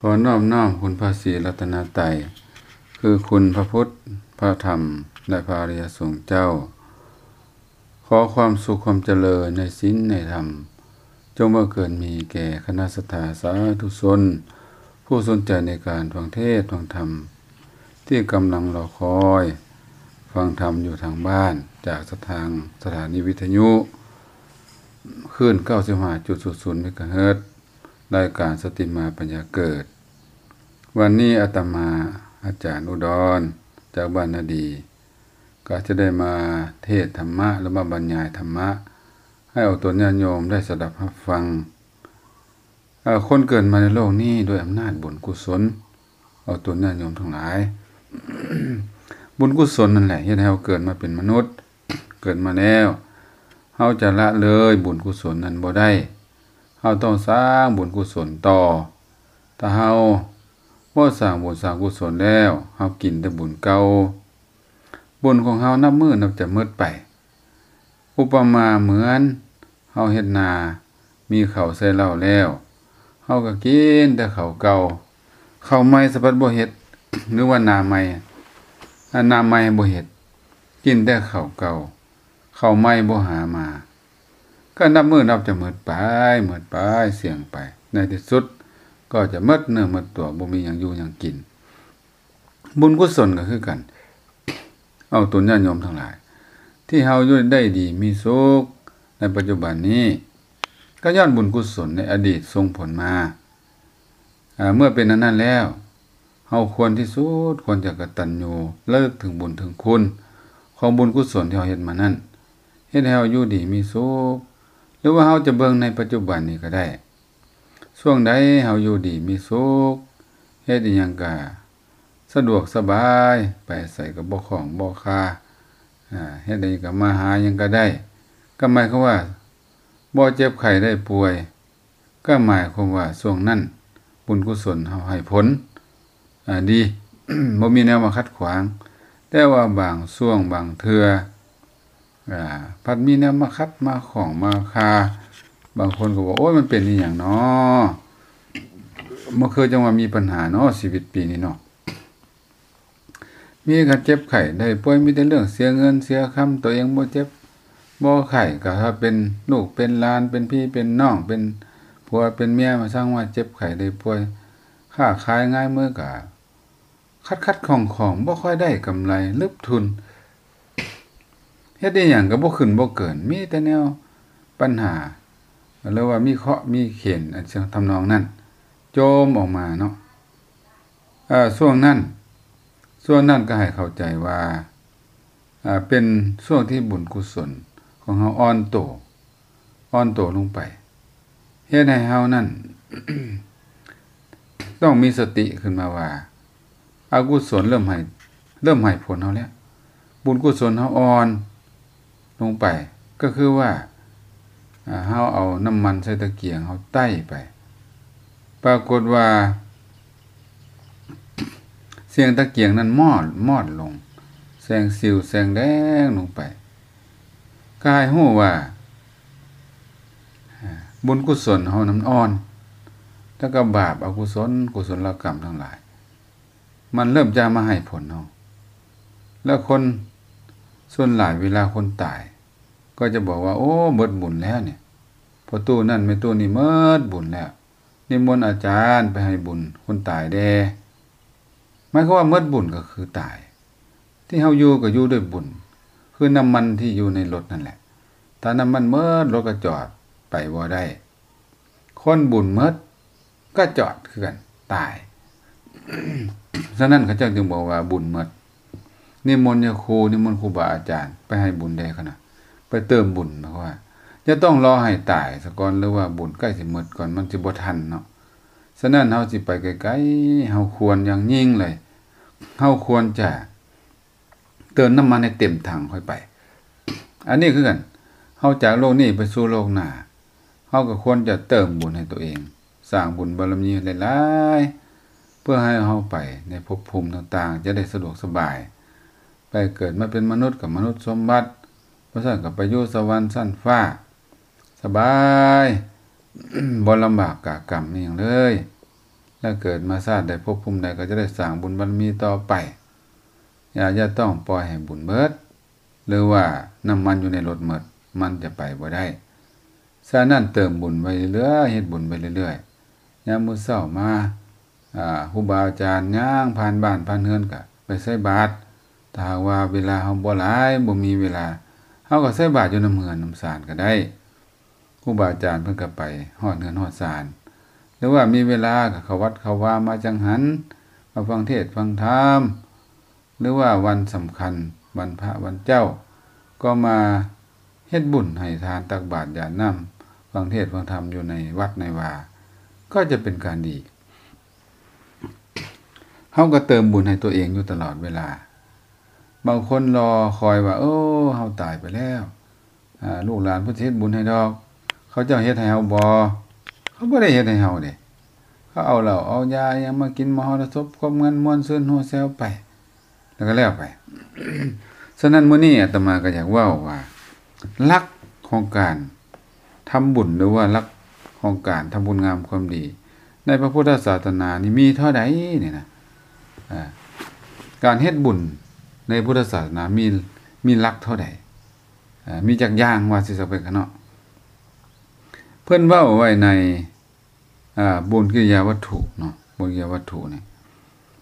ຂໍນອບນ້ອມຄຸນພະສີລັດຕະນະໄຕ ຄືຄຸນພະພຸດ ພະທຳ ແລະ ພະອະລິຍະສົງເຈົ້າ. ຂໍຄວາມສຸກຄວາມຈະເລີນໃນສິນໃນທຳ ຈົ່ງບັງເກີດມີແກ່ຄະນະສັດທາສາທຸຊົນ ຜູ້ສົນໃຈໃນການຟັງເທດຟັງທຳ ທີ່ກຳລັງລໍຄອຍຟັງທຳຢູ່ທາງບ້ານ ຈາກສະຖານ ສະຖານີວິທະຍຸ ຄື້ນເກົ້າສິບຫ້າຈຸດສູນເມກາເຮີດ ລາຍການສະຕິມາປັນຍາເກີດ. ວັນນີ້ອາດຕະມາ ອາຈານອຸດອນ ຈາກບ້ານນາດີ ກໍຈະໄດ້ມາເທດທຳມະ ຫຼືວ່າບັນຍາຍທຳມະ ໃຫ້ອອກຕົນຍາດໂຍມໄດ້ສະດັບຮັບຟັງ. ເອີ ຄົນເກີດມາໃນໂລກນີ້ດ້ວຍອຳນາດບຸນກຸສົນ ອອກຕົນຍາດໂຍມທັງຫຼາຍ. ບຸນກຸສົນນັ້ນແຫຼະເຮັດໃຫ້ເຮົາເກີດມາເປັນມະນຸດ. ເກີດມາແລ້ວ ເຮົາຈະລະເລີຍບຸນກຸສົນນັ້ນບໍ່ໄດ້. ເຮົາຕ້ອງສ້າງບຸນກຸສົນຕໍ່. ຖ້າເຮົາບໍ່ສ້າງບຸນສ້າງກຸສົນແລ້ວ ເຮົາກິນແຕ່ບຸນເກົ່າ. ບຸນຂອງເຮົານັບມື້ນັບຈະໝົດໄປ. ອຸປະມາເໝືອນເຮົາເຮັດນາ ມີເຂົ້າໃສ່ເລົ້າແລ້ວ ເຮົາກໍກິນແຕ່ເຂົ້າເກົ່າ. ເຂົ້າໃໝ່ສະພັດບໍ່ເຮັດ ຫຼືວ່ານາໃໝ່ ອາ ນາໃໝ່ບໍ່ເຮັດ ກິນແຕ່ເຂົ້າເກົ່າ. ເຂົ້າໃໝ່ບໍ່ຫາມາ ກໍນັບມື້ນັບຈະໝົດໄປ ໝົດໄປ ສ່ຽງໄປ. ໃນທີ່ສຸດກໍຈະໝົດເນື້ອໝົດຕົວ ບໍ່ມີຫຍັງຢູ່ຫຍັງກິນ. ບຸນກຸສົນກໍຄືກັນ ອອກຕົນຍາດໂຍມທັງຫຼາຍ ທີ່ເຮົາຢູ່ໄດ້ດີມີສຸກໃນປັດຈຸບັນນີ້ ກໍຍ້ອນບຸນກຸສົນໃນອະດີດສົ່ງຜົນມາ. ອາ ເມື່ອເປັນອັນນັ້ນແລ້ວ ເຮົາຄວນທີ່ສຸດຄວນຈະກະຕັນຍູ ລະລຶກເຖິງບຸນເຖິງຄຸນຂອງບຸນກຸສົນທີ່ເຮົາເຮັດມານັ້ນ ເຮັດໃຫ້ເຮົາຢູ່ດີມີສຸກ. ຫຼືວ່າເຮົາຈະເບິ່ງໃນປັດຈຸບັນນີ້ກໍໄດ້ ຊ່ວງໃດເຮົາຢູ່ດີມີສຸກ ເຮັດອີ່ຫຍັງກະສະດວກສະບາຍ ໄປໃສກະບໍ່ຂ້ອງບໍ່ຄາ ອາ ເຮັດໃດກະມາຫາຫຍັງກະໄດ້ ກໍໝາຍຄວາມວ່າບໍ່ເຈັບໄຂ້ໄດ້ປ່ວຍ ກໍໝາຍຄວາມວ່າຊ່ວງນັ້ນບຸນກຸສົນເຮົາໃຫ້ຜົນ ອາ ດີ ບໍ່ມີແນວມາຂັດຂວາງ. ແຕ່ວ່າບາງຊ່ວງບາງເທື່ອ ອາ ພັດມີແນວມາຂັດມາຂ້ອງມາຄາ. ບາງຄົນກໍບອກ ໂອ້ຍ ມັນເປັນອີ່ຫຍັງນໍ ມັນຄືຈັ່ງວ່າມີປັນຫານໍ ຊີວິດປີນີ້ນໍ. ມີການເຈັບໄຂ້ໄດ້ປ່ວຍ ມີແຕ່ເລື່ອງເສຍເງິນເສຍຄຳ. ຕົວເອງບໍ່ເຈັບບໍ່ໄຂ້ ກໍຖ້າເປັນລູກເປັນຫຼານ ເປັນພີ່ເປັນນ້ອງ ເປັນຜົວເປັນເມຍ ມາສ້າງວ່າເຈັບໄຂ້ໄດ້ປ່ວຍ. ຄ້າຂາຍງາຍມືກໍຂັດໆຂ້ອງໆ ບໍ່ຄ່ອຍໄດ້ກຳໄລ ລຶບທຶນ. ເຮັດອີ່ຫຍັງກໍບໍ່ຂຶ້ນບໍ່ເກີນ ມີແຕ່ແນວປັນຫາ ຫຼືວ່າມີເຄາະມີເຂນ ອັນທຳນອງນັ້ນ ໂຈມອອກມາເນາະ. ເອີ ຊ່ວງນັ້ນ ຊ່ວງນັ້ນກໍໃຫ້ເຂົ້າໃຈວ່າ ເປັນຊ່ວງທີ່ບຸນກຸສົນຂອງເຮົາອ່ອນໂຕ ອ່ອນໂຕລົງໄປ ເຮັດໃຫ້ເຮົານັ້ນ ຕ້ອງມີສະຕິຂຶ້ນມາວ່າ ອະກຸສົນເລີ່ມໃຫ້ ເລີ່ມໃຫ້ຜົນເຮົາແລ້ວ ບຸນກຸສົນເຮົາອ່ອນລົງໄປ. ກໍຄືວ່າ ອາ ເຮົາເອົານ້ຳມັນໃສ່ຕະກຽງ ເຮົາໄຕ້ໄປ ປາກົດວ່າ ສຽງຕະກຽງນັ້ນມອດ ມອດລົງ ແສງສິວແສງແດງລົງໄປ ກໍໃຫ້ຮູ້ວ່າ ອາ ບຸນກຸສົນເຮົານັ້ນອ່ອນ ແລ້ວກໍບາບອະກຸສົນ ກຸສົນລະກຳທັງຫຼາຍ ມັນເລີ່ມຈະມາໃຫ້ຜົນເຮົາ. ແລ້ວຄົນສ່ວນຫຼາຍເວລາຄົນຕາຍ ກໍຈະບອກວ່າ ໂອ້ ໝົດບຸນແລ້ວນີ້ ພໍ່ຕູ້ນັ້ນແມ່ຕູ້ນີ້ໝົດບຸນແລ້ວ ນິມົນອາຈານໄປໃຫ້ບຸນຄົນຕາຍແດ່. ໝາຍຄວາມວ່າໝົດບຸນກໍຄືຕາຍ. ທີ່ເຮົາຢູ່ກໍຢູ່ດ້ວຍບຸນ ຄືນ້ຳມັນທີ່ຢູ່ໃນລົດນັ້ນແຫຼະ ຖ້ານ້ຳມັນໝົດ ລົດກໍຈອດ ໄປບໍ່ໄດ້. ຄົນບຸນໝົດກໍຈອດຄືກັນ ຕາຍ. ສະນັ້ນເຂົາເຈົ້າຈຶ່ງບອກວ່າບຸນໝົດ ນິມົນຍາຄູ ນິມົນຄູບາອາຈານໄປໃຫ້ບຸນແດ່ ຂະນະ ໄປເຕີມບຸນ. ໝາຍຄວາມວ່າຈະຕ້ອງລໍໃຫ້ຕາຍສາກ່ອນ ຫຼືວ່າບຸນໃກ້ຊິໝົດກ່ອນ ມັນຊິບໍ່ທັນເນາະ. ສະນັ້ນເຮົາຊິໄປໄກໆ ເຮົາຄວນຢ່າງຍິ່ງເລີຍ ເຮົາຄວນຈະເຕີມນ້ຳມັນໃຫ້ເຕັມຖັງຄ່ອຍໄປ. ອັນນີ້ຄືກັນ ເຮົາຈາກໂລກນີ້ໄປສູ່ໂລກໜ້າ ເຮົາກໍຄວນຈະເຕີມບຸນໃຫ້ຕົວເອງ ສ້າງບຸນບາລະມີໃຫ້ຫຼາຍໆ ເພື່ອໃຫ້ເຮົາໄປໃນພົບພູມຕ່າງໆ ຈະໄດ້ສະດວກສະບາຍ ໄປເກີດມາເປັນມະນຸດກໍມະນຸດສົມບັດ ບໍ່ຊັ້ນກໍໄປຢູ່ສະຫວັນຊັ້ນຟ້າ ສະບາຍ ບໍ່ລຳບາກກາກຳອີ່ຫຍັງເລີຍ. ແລະເກີດມາຊາດໃດພົບພູມໃດກໍຈະໄດ້ສ້າງບຸນບາລະມີຕໍ່ໄປ. ຢ່າ ຢ່າຕ້ອງປ່ອຍໃຫ້ບຸນເໝິດ ຫຼືວ່ານ້ຳມັນຢູ່ໃນລົດເໝິດ ມັນຈະໄປບໍ່ໄດ້. ສະນັ້ນເຕີມບຸນໄວ້ເລື້ອຍໆ ເຮັດບຸນໄປເລື້ອຍໆ. ຍາມມື້ເຊົ້າມາ ອາ ຄູບາອາຈານຍ່າງຜ່ານບ້ານຜ່ານເຮືອນກະໄປໃສ່ບາດ. ຖ້າຫາກວ່າເວລາເຮົາບໍ່ຫຼາຍ ບໍ່ມີເວລາ ເຮົາກໍໃສ່ບາດຢູ່ນຳເຮືອນນຳສານກໍໄດ້. ຄູບາອາຈານເພິ່ນກໍໄປຮອດເຮືອນຮອດສານ ຫຼືວ່າມີເວລາກໍເຂົ້າວັດເຂົ້າວາມາຈັງຫັນ ມາຟັງເທດຟັງທຳ ຫຼືວ່າວັນສຳຄັນ ວັນພະວັນເຈົ້າ ກໍມາເຮັດບຸນໃຫ້ທານຕັກບາດຢາດນ້ຳ ຟັງເທດຟັງທຳຢູ່ໃນວັດໃນວາ ກໍຈະເປັນການດີ. ເຮົາກໍເຕີມບຸນໃຫ້ຕົວເອງຢູ່ຕະຫຼອດເວລາ. ບາງຄົນລໍຄອຍວ່າ ໂອ້ ເຮົາຕາຍໄປແລ້ວ ອາ ລູກຫຼານເພິ່ນຊິເຮັດບຸນໃຫ້ດອກ. ເຂົາເຈົ້າເຮັດໃຫ້ເຮົາບໍ່? ເຂົາບໍ່ໄດ້ເຮັດໃຫ້ເຮົາເດ້. ເຂົາເອົາເຫຼົ້າເອົາຢາອີ່ຫຍັງມາກິນມະຫໍລະສົບ ຄວາມງານມ່ວນຊື່ນຫົວແຊວໄປ ແລ້ວກໍແລ້ວໄປ. ສະນັ້ນ ມື້ນີ້ອາດຕະມາກໍຢາກເວົ້າວ່າ ຫຼັກຂອງການທຳບຸນ ຫຼືວ່າຫຼັກຂອງການທຳຄຸນງາມຄວາມດີ ໃນພະພຸດທະສາສະໜານີ້ມີເທົ່າໃດນີ້ນະ. ອາ ການເຮັດບຸນໃນພຸດທະສາສະໜາມີ ມີຫຼັກເທົ່າໃດ? ອາ ມີຈັກຢ່າງ ວ່າຊິຊະເປັນກະເນາະ. ເພິ່ນເວົ້າໄວ້ໃນ ອາ ບຸນກິລິຍາວັດຖຸເນາະ ບຸນກິລິຍາວັດຖຸນີ້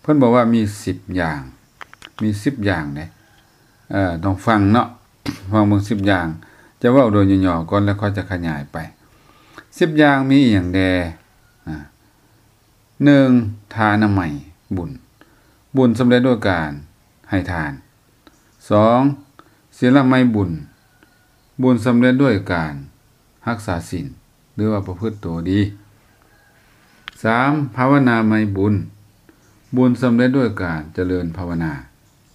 ເພິ່ນບອກວ່າມີສິບຢ່າງ ມີສິບຢ່າງເດ້. ເອີ ຕ້ອງຟັງເນາະ ຟັງເບິ່ງສິບຢ່າງ. ຈະເວົ້າໂດຍຫຍໍ້ໆກ່ອນ ແລ້ວຄ່ອຍຈະຂະຫຍາຍໄປ. ສິບຢ່າງມີອີ່ຫຍັງແດ່? ອາ ໜຶ່ງ ທານະໄມບຸນ ບຸນສຳເລັດດ້ວຍການໃຫ້ທານ. ສອງ ສິນລະໄມບຸນ ບຸນສຳເລັດດ້ວຍການຮັກສາສິນ ຫຼືວ່າປະພຶດໂຕດີ. ສາມ ພາວະນາໄມບຸນ ບຸນສຳເລັດດ້ວຍການຈະເລີນພາວະນາ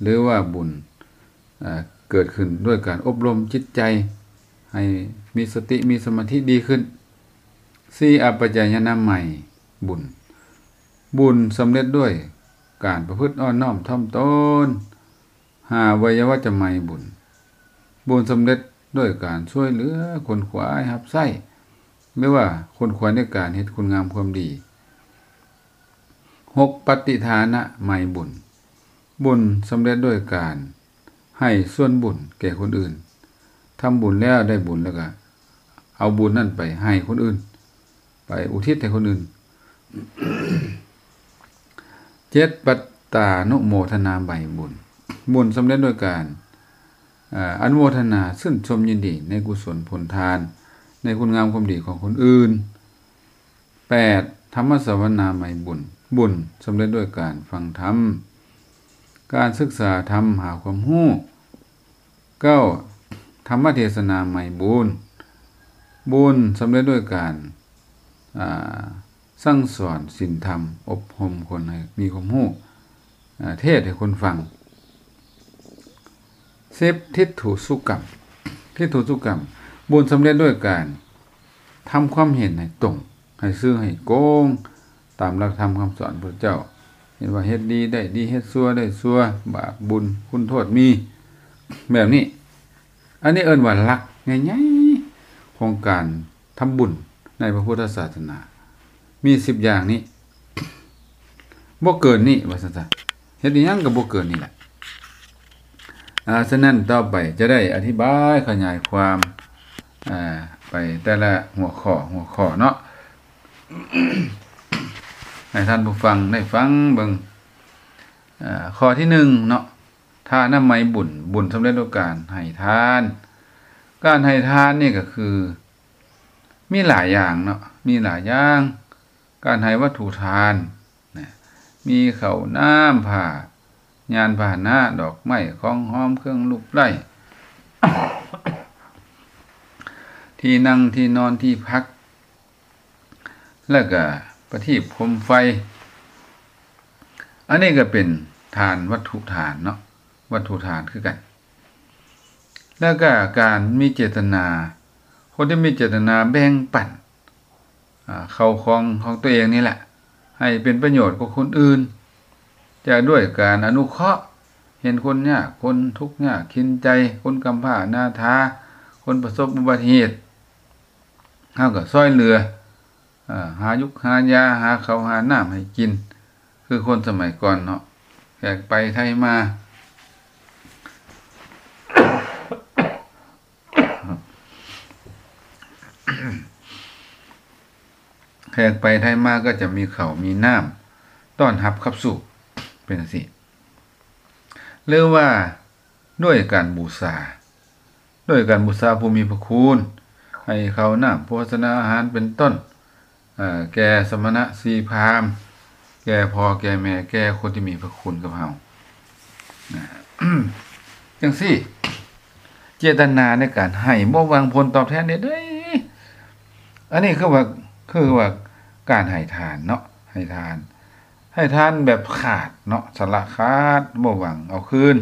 ຫຼືວ່າບຸນ ເອີ ເກີດຂຶ້ນດ້ວຍການອົບຮົມຈິດໃຈໃຫ້ມີສະຕິ ມີສະມາທິດີຂຶ້ນ. ສີ່ ອາປັດຈາຍະນາໄມບຸນ ບຸນສຳເລັດດ້ວຍການປະພຶດອ່ອນນ້ອມຖ່ອມຕົນ. ຫ້າ ໄວຍະວັດຈະໄມບຸນ ບຸນສຳເລັດດ້ວຍການຊ່ວຍເຫຼືອຂົນຂວາຍຮັບໃຊ້ ຫຼືວ່າຂົນຂວາຍໃນການເຮັດຄຸນງາມຄວາມດີ. ຫົກ ປະຕິທານະໄມບຸນ ບຸນສຳເລັດດ້ວຍການໃຫ້ສ່ວນບຸນແກ່ຄົນອື່ນ. ທຳບຸນແລ້ວໄດ້ບຸນ ແລ້ວກະເອົາບຸນນັ້ນໄປໃຫ້ຄົນອື່ນ ໄປອຸທິດໃຫ້ຄົນອື່ນ. ເຈັດ ປັດຕານຸໂມທະນາໄມບຸນ ບຸນສຳເລັດດ້ວຍການ ອາ ອະນຸໂມທະນາຊື່ນຊົມຍິນດີໃນກຸສົນຜົນທານ ໃນຄຸນງາມຄວາມດີຂອງຄົນອື່ນ. ແປດ ທຳມະສະວະນາໄມບຸນ ບຸນສຳເລັດດ້ວຍການຟັງທຳ ການສຶກສາທຳ ຫາຄວາມຮູ້. ເກົ້າ ທຳມະເທສະນາໄມບຸນ ບຸນສຳເລັດດ້ວຍການ ອາ ສັ່ງສອນສິນທຳ ອົບຮົມຄົນໃຫ້ມີຄວາມຮູ້ ອາ ເທດໃຫ້ຄົນຟັງ. ສິບ ທິດຖຸສຸກຳ ທິດຖຸສຸກຳ ບຸນສຳເລັດດ້ວຍການທຳຄວາມເຫັນໃຫ້ຕົງ ໃຫ້ຊື່ໃຫ້ໂກງ ຕາມຫຼັກທຳຄຳສອນພະພຸດທະເຈົ້າ ເຫັນວ່າເຮັດດີໄດ້ດີ ເຮັດຊົ່ວໄດ້ຊົ່ວ ບາບບຸນຄຸນໂທດມີ ແບບນີ້. ອັນນີ້ເອີ້ນວ່າຫຼັກໃຫຍ່ໆຂອງການທຳບຸນໃນພະພຸດທະສາສະໜາ ມີສິບຢ່າງນີ້ ບໍ່ເກີນນີ້ ວ່າຊັ້ນຊະ. ເຮັດອີ່ຫຍັງກໍບໍ່ເກີນນີ້ແຫຼະ. ອາ ສະນັ້ນຕໍ່ໄປຈະໄດ້ອະທິບາຍຂະຫຍາຍຄວາມ ອາ ໄປແຕ່ລະຫົວຂໍ້ ຫົວຂໍ້ເນາະ ໃຫ້ທ່ານຜູ້ຟັງໄດ້ຟັງເບິ່ງ. ອາ ຂໍ້ທີໜຶ່ງເນາະ ທານະໄມບຸນ ບຸນສຳເລັດດ້ວຍການໃຫ້ທານ. ການໃຫ້ທານນີ້ກໍຄືມີຫຼາຍຢ່າງເນາະ ມີຫຼາຍຢ່າງ. ການໃຫ້ວັດຖຸທານນະ ມີເຂົ້ານ້ຳ ຜ້າ ຍານພາຫະນະ ດອກໄມ້ ຂອງຫອມ ເຄື່ອງລູບໄລ້ ທີ່ນັ່ງ ທີ່ນອນ ທີ່ພັກ ແລ້ວກະປະທີບໂຄມໄຟ. ອັນນີ້ກໍເປັນທານ ວັດຖຸທານເນາະ ວັດຖຸທານຄືກັນ. ແລ້ວກະການມີເຈດຕະນາ ຄົນທີ່ມີເຈດຕະນາແບ່ງປັນ ອາ ເຂົ້າຂອງຂອງຕົວເອງນີ້ແຫຼະ ໃຫ້ເປັນປະໂຫຍດກັບຄົນອື່ນ ຈະດ້ວຍການອະນຸເຄາະ ເຫັນຄົນຍາກ ຄົນທຸກຍາກເຂັນໃຈ ຄົນກຳພ້າອະນາຖາ ຄົນປະສົບອຸບັດຕິເຫດ ເຮົາກໍຊ່ອຍເຫຼືອ ເອີ ຫາຍຸກຫາຢາ ຫາເຂົ້າຫານ້ຳໃຫ້ກິນ ຄືຄົນສະໄໝກ່ອນເນາະ. ແຂກໄປໄທມາ ແຂກໄປໄທມາກໍຈະມີເຂົ້າມີນ້ຳຕ້ອນຮັບຂັບສູ້ ເປັນຈັ່ງຊີ້ ຫຼືວ່າດ້ວຍການບູຊາ ດ້ວຍການບູຊາຜູ້ມີພະຄຸນ ໃຫ້ເຂົ້ານ້ຳໂພຊະນາອາຫານເປັນຕົ້ນ ເອີ ແກ່ສະມະນະຊີພາມ ແກ່ພໍ່ແກ່ແມ່ ແກ່ຄົນທີ່ມີພະຄຸນກັບເຮົາ ນະ ຈັ່ງຊີ້ ເຈດຕະນາໃນການໃຫ້ບໍ່ຫວັງຜົນຕອບແທນໃດໆ ອັນນີ້ຄືວ່າ ຄືວ່າການໃຫ້ທານເນາະ ໃຫ້ທານ ໃຫ້ທານແບບຂາດເນາະ ສະຫຼະຂາດ ບໍ່ຫວັງເອົາຄືນ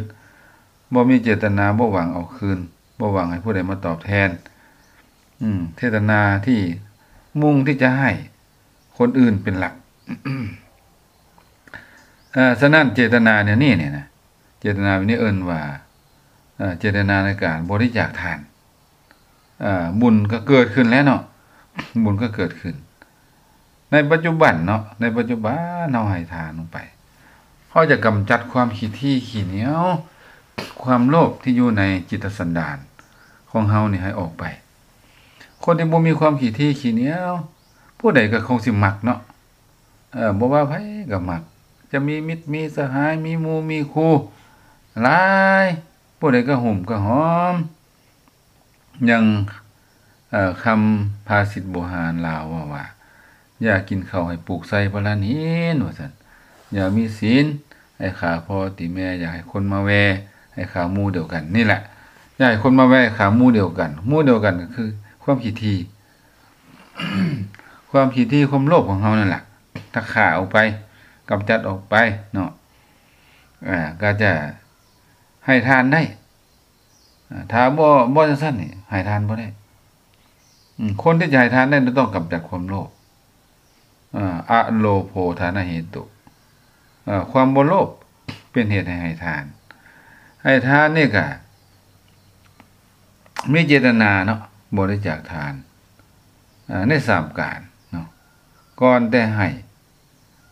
ບໍ່ມີເຈດຕະນາ ບໍ່ຫວັງເອົາຄືນ ບໍ່ຫວັງໃຫ້ຜູ້ໃດມາຕອບແທນ ອືມ ເຈດຕະນາທີ່ມຸ່ງທີ່ຈະໃຫ້ຄົນອື່ນເປັນຫຼັກ. ເອີ ສະນັ້ນເຈດຕະນາແນວນີ້ນີ້ນະ ເຈດຕະນາແບບນີ້ເອີ້ນວ່າ ເອີ ເຈດຕະນາໃນການບໍລິຈາກທານ ເອີ ບຸນກໍເກີດຂຶ້ນແລ້ວເນາະ ບຸນກໍເກີດຂຶ້ນ ໃນປັດຈຸບັນເນາະ ໃນປັດຈຸບັນເຮົາໃຫ້ທານລົງໄປ ເຮົາຈະກຳຈັດຄວາມຂີ້ຖີ່ຂີ້ໜຽວ ຄວາມໂລບທີ່ຢູ່ໃນຈິດຕະສັນດານຂອງເຮົານີ້ໃຫ້ອອກໄປ. ຄົນທີ່ບໍ່ມີຄວາມຂີ້ຖີ່ຂີ້ໜຽວ ຜູ້ໃດກໍຄົງຊິມັກເນາະ ເອີ ບໍ່ວ່າໃຜກໍມັກ ຈະມີມິດມີສະຫາຍ ມີໝູ່ມີຄູ່ຫຼາຍ ຜູ້ໃດກໍຫຸ້ມກໍຫອມ. ຢ່າງ ເອີ ຄຳພາສິດບູຮານລາວເວົ້າວ່າ ຢ່າກິນເຂົ້າໃຫ້ປູກໃສ່ພະລານຫີນ ວ່າຊັ້ນ ຢ່າມີສິນໃຫ້ຂ້າພໍ່ຕີແມ່ ຢ່າໃຫ້ຄົນມາແວ່ໃຫ້ຂ້າໝູ່ດຽວກັນ ນີ້ແຫຼະ ຢ່າໃຫ້ຄົນມາແວ່ຂ້າໝູ່ດຽວກັນ ໝູ່ດຽວກັນກໍຄືຄວາມຂີ້ຖີ່ ຄວາມຂີ້ຖີ່ ຄວາມໂລບຂອງເຮົານັ້ນລະ ຖ້າຂ້າອອກໄປ ກຳຈັດອອກໄປເນາະ ເອີ ກໍຈະໃຫ້ທານໄດ້. ອາ ຖ້າບໍ່ ບໍ່ຈັ່ງຊັ້ນນີ້ໃຫ້ທານບໍ່ໄດ້. ອາ ຄົນທີ່ຈະໃຫ້ທານໄດ້ຕ້ອງກຳຈັດຄວາມໂລບ. ອາ ອະໂລໂພທານະເຫຕຸ ອາ ຄວາມບໍ່ໂລບເປັນເຫດໃຫ້ໃຫ້ທານ. ໃຫ້ທານນີ້ກະມີເຈດຕະນາເນາະ ບໍລິຈາກທານ ອາ ໃນສາມການເນາະ ກ່ອນແຕ່ໃຫ້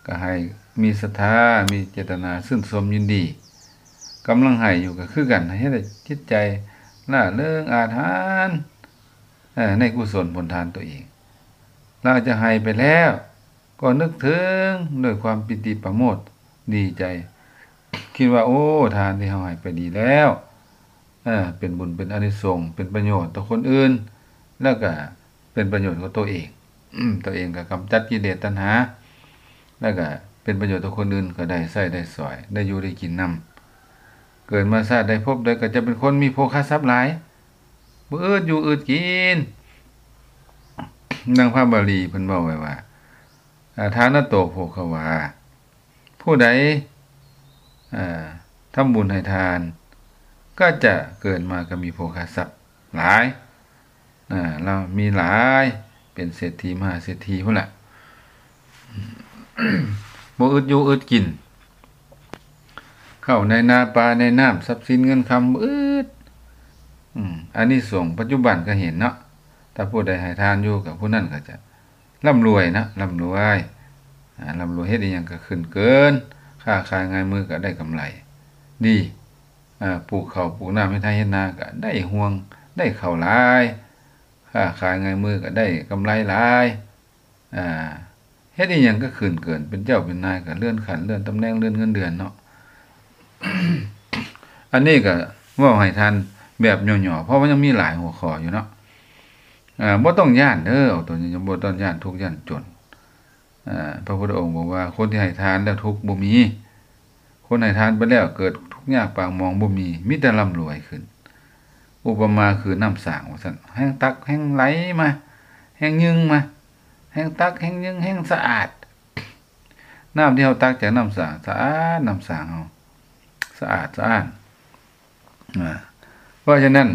ກໍໃຫ້ມີສັດທາ ມີເຈດຕະນາຊື່ນຊົມຍິນດີ. ກຳລັງໃຫ້ຢູ່ກໍຄືກັນ ໃຫ້ເຮັດໃຫ້ຈິດໃຈລ່າເລີງອາດຫານ ເອີ ໃນກຸສົນຜົນທານຕົວເອງ. ຫຼັງຈາກໃຫ້ໄປແລ້ວ ກໍນຶກເຖິງດ້ວຍຄວາມປີຕິປະໂມດດີໃຈ ຄິດວ່າ ໂອ້ ທານທີ່ເຮົາໃຫ້ໄປດີແລ້ວ ເອີ ເປັນບຸນເປັນອານິສົງ ເປັນປະໂຫຍດຕໍ່ຄົນອື່ນ ແລ້ວກະເປັນປະໂຫຍດຕໍ່ຕົວເອງ. ຕົວເອງກໍກຳຈັດກິເລດຕັນຫາ ແລ້ວກະເປັນປະໂຫຍດຕໍ່ຄົນອື່ນ ກໍໄດ້ໃຊ້ໄດ້ສອຍ ໄດ້ຢູ່ໄດ້ກິນນຳ. ເກີດມາຊາດໃດພົບໃດ ກໍຈະເປັນຄົນມີໂພຄະຊັບຫຼາຍ ບໍ່ອຶດຢູ່ອຶດກິນ. ດັ່ງພະບາລີເພິ່ນເວົ້າໄວ້ວ່າ ອາ ທານະໂຕໂພຄະວາ ຜູ້ໃດ ເອີ ທຳບຸນໃຫ້ທານ ກໍຈະເກີດມາກໍມີໂພຄະຊັບຫຼາຍ ເອີ ລາວມີຫຼາຍ ເປັນເສດຖີມະຫາເສດຖີພຸ້ນລະ ບໍ່ອຶດຢູ່ອຶດກິນ ເຂົ້າໃນນາປາໃນນ້ຳ ຊັບສິນເງິນຄຳບໍ່ອຶດ. ອາ ອານິສົງປັດຈຸບັນກໍເຫັນເນາະ ຖ້າຜູ້ໃດໃຫ້ທານຢູ່ ກໍຜູ້ນັ້ນກໍຈະ ລ່ຳລວຍນະ ລ່ຳລວຍ ອາ ລ່ຳລວຍ ເຮັດອີ່ຫຍັງກໍຂຶ້ນເກີນ ຄ້າຂາຍງ່າຍມືກໍໄດ້ກຳໄລດີ ອາ ປູກເຂົ້າປູກນ້ຳ ເຮັດໄຮ່ເຮັດນາກໍໄດ້ຮວງ ໄດ້ເຂົ້າຫຼາຍ ຄ້າຂາຍງ່າຍມືກໍໄດ້ກຳໄລຫຼາຍ ອາ ເຮັດອີ່ຫຍັງກໍຂຶ້ນເກີນ ເປັນເຈົ້າເປັນນາຍ ກໍເລື່ອນຂັ້ນເລື່ອນຕຳແໜ່ງ ເລື່ອນເງິນເດືອນເນາະ. ອັນນີ້ກໍເວົ້າໃຫ້ທ່ານແບບຫຍໍ້ໆ ເພາະວ່າຍັງມີຫຼາຍຫົວຂໍ້ຢູ່ເນາະ. ອາ ບໍ່ຕ້ອງຢ້ານເດີ ເອົາຕົວຢ່າງ ບໍ່ຕ້ອງຢ້ານທຸກຢ້ານຈົນ. ອາ ພະພຸດທະອົງບອກວ່າ ຄົນທີ່ໃຫ້ທານແລ້ວທຸກບໍ່ມີ, ຄົນໃຫ້ທານໄປແລ້ວເກີດທຸກຍາກປາກໝອງບໍ່ມີ, ມີແຕ່ລ່ຳລວຍຂຶ້ນ. ອຸປະມາຄືນ້ຳສາງວ່າຊັ້ນ, ແຮງຕັກແຮງໄຫຼມາ, ແຮງຍຶ່ງມາ, ແຮງຕັກແຮງຍຶ່ງແຮງສະອາດ. ນ້ຳທີ່ເຮົາຕັກຈາກນ້ຳສາງ ສະອາດ, ນ້ຳສາງເຮົາສະອາດສະອ້ານ. ອາ ເພາະສະນັ້ນ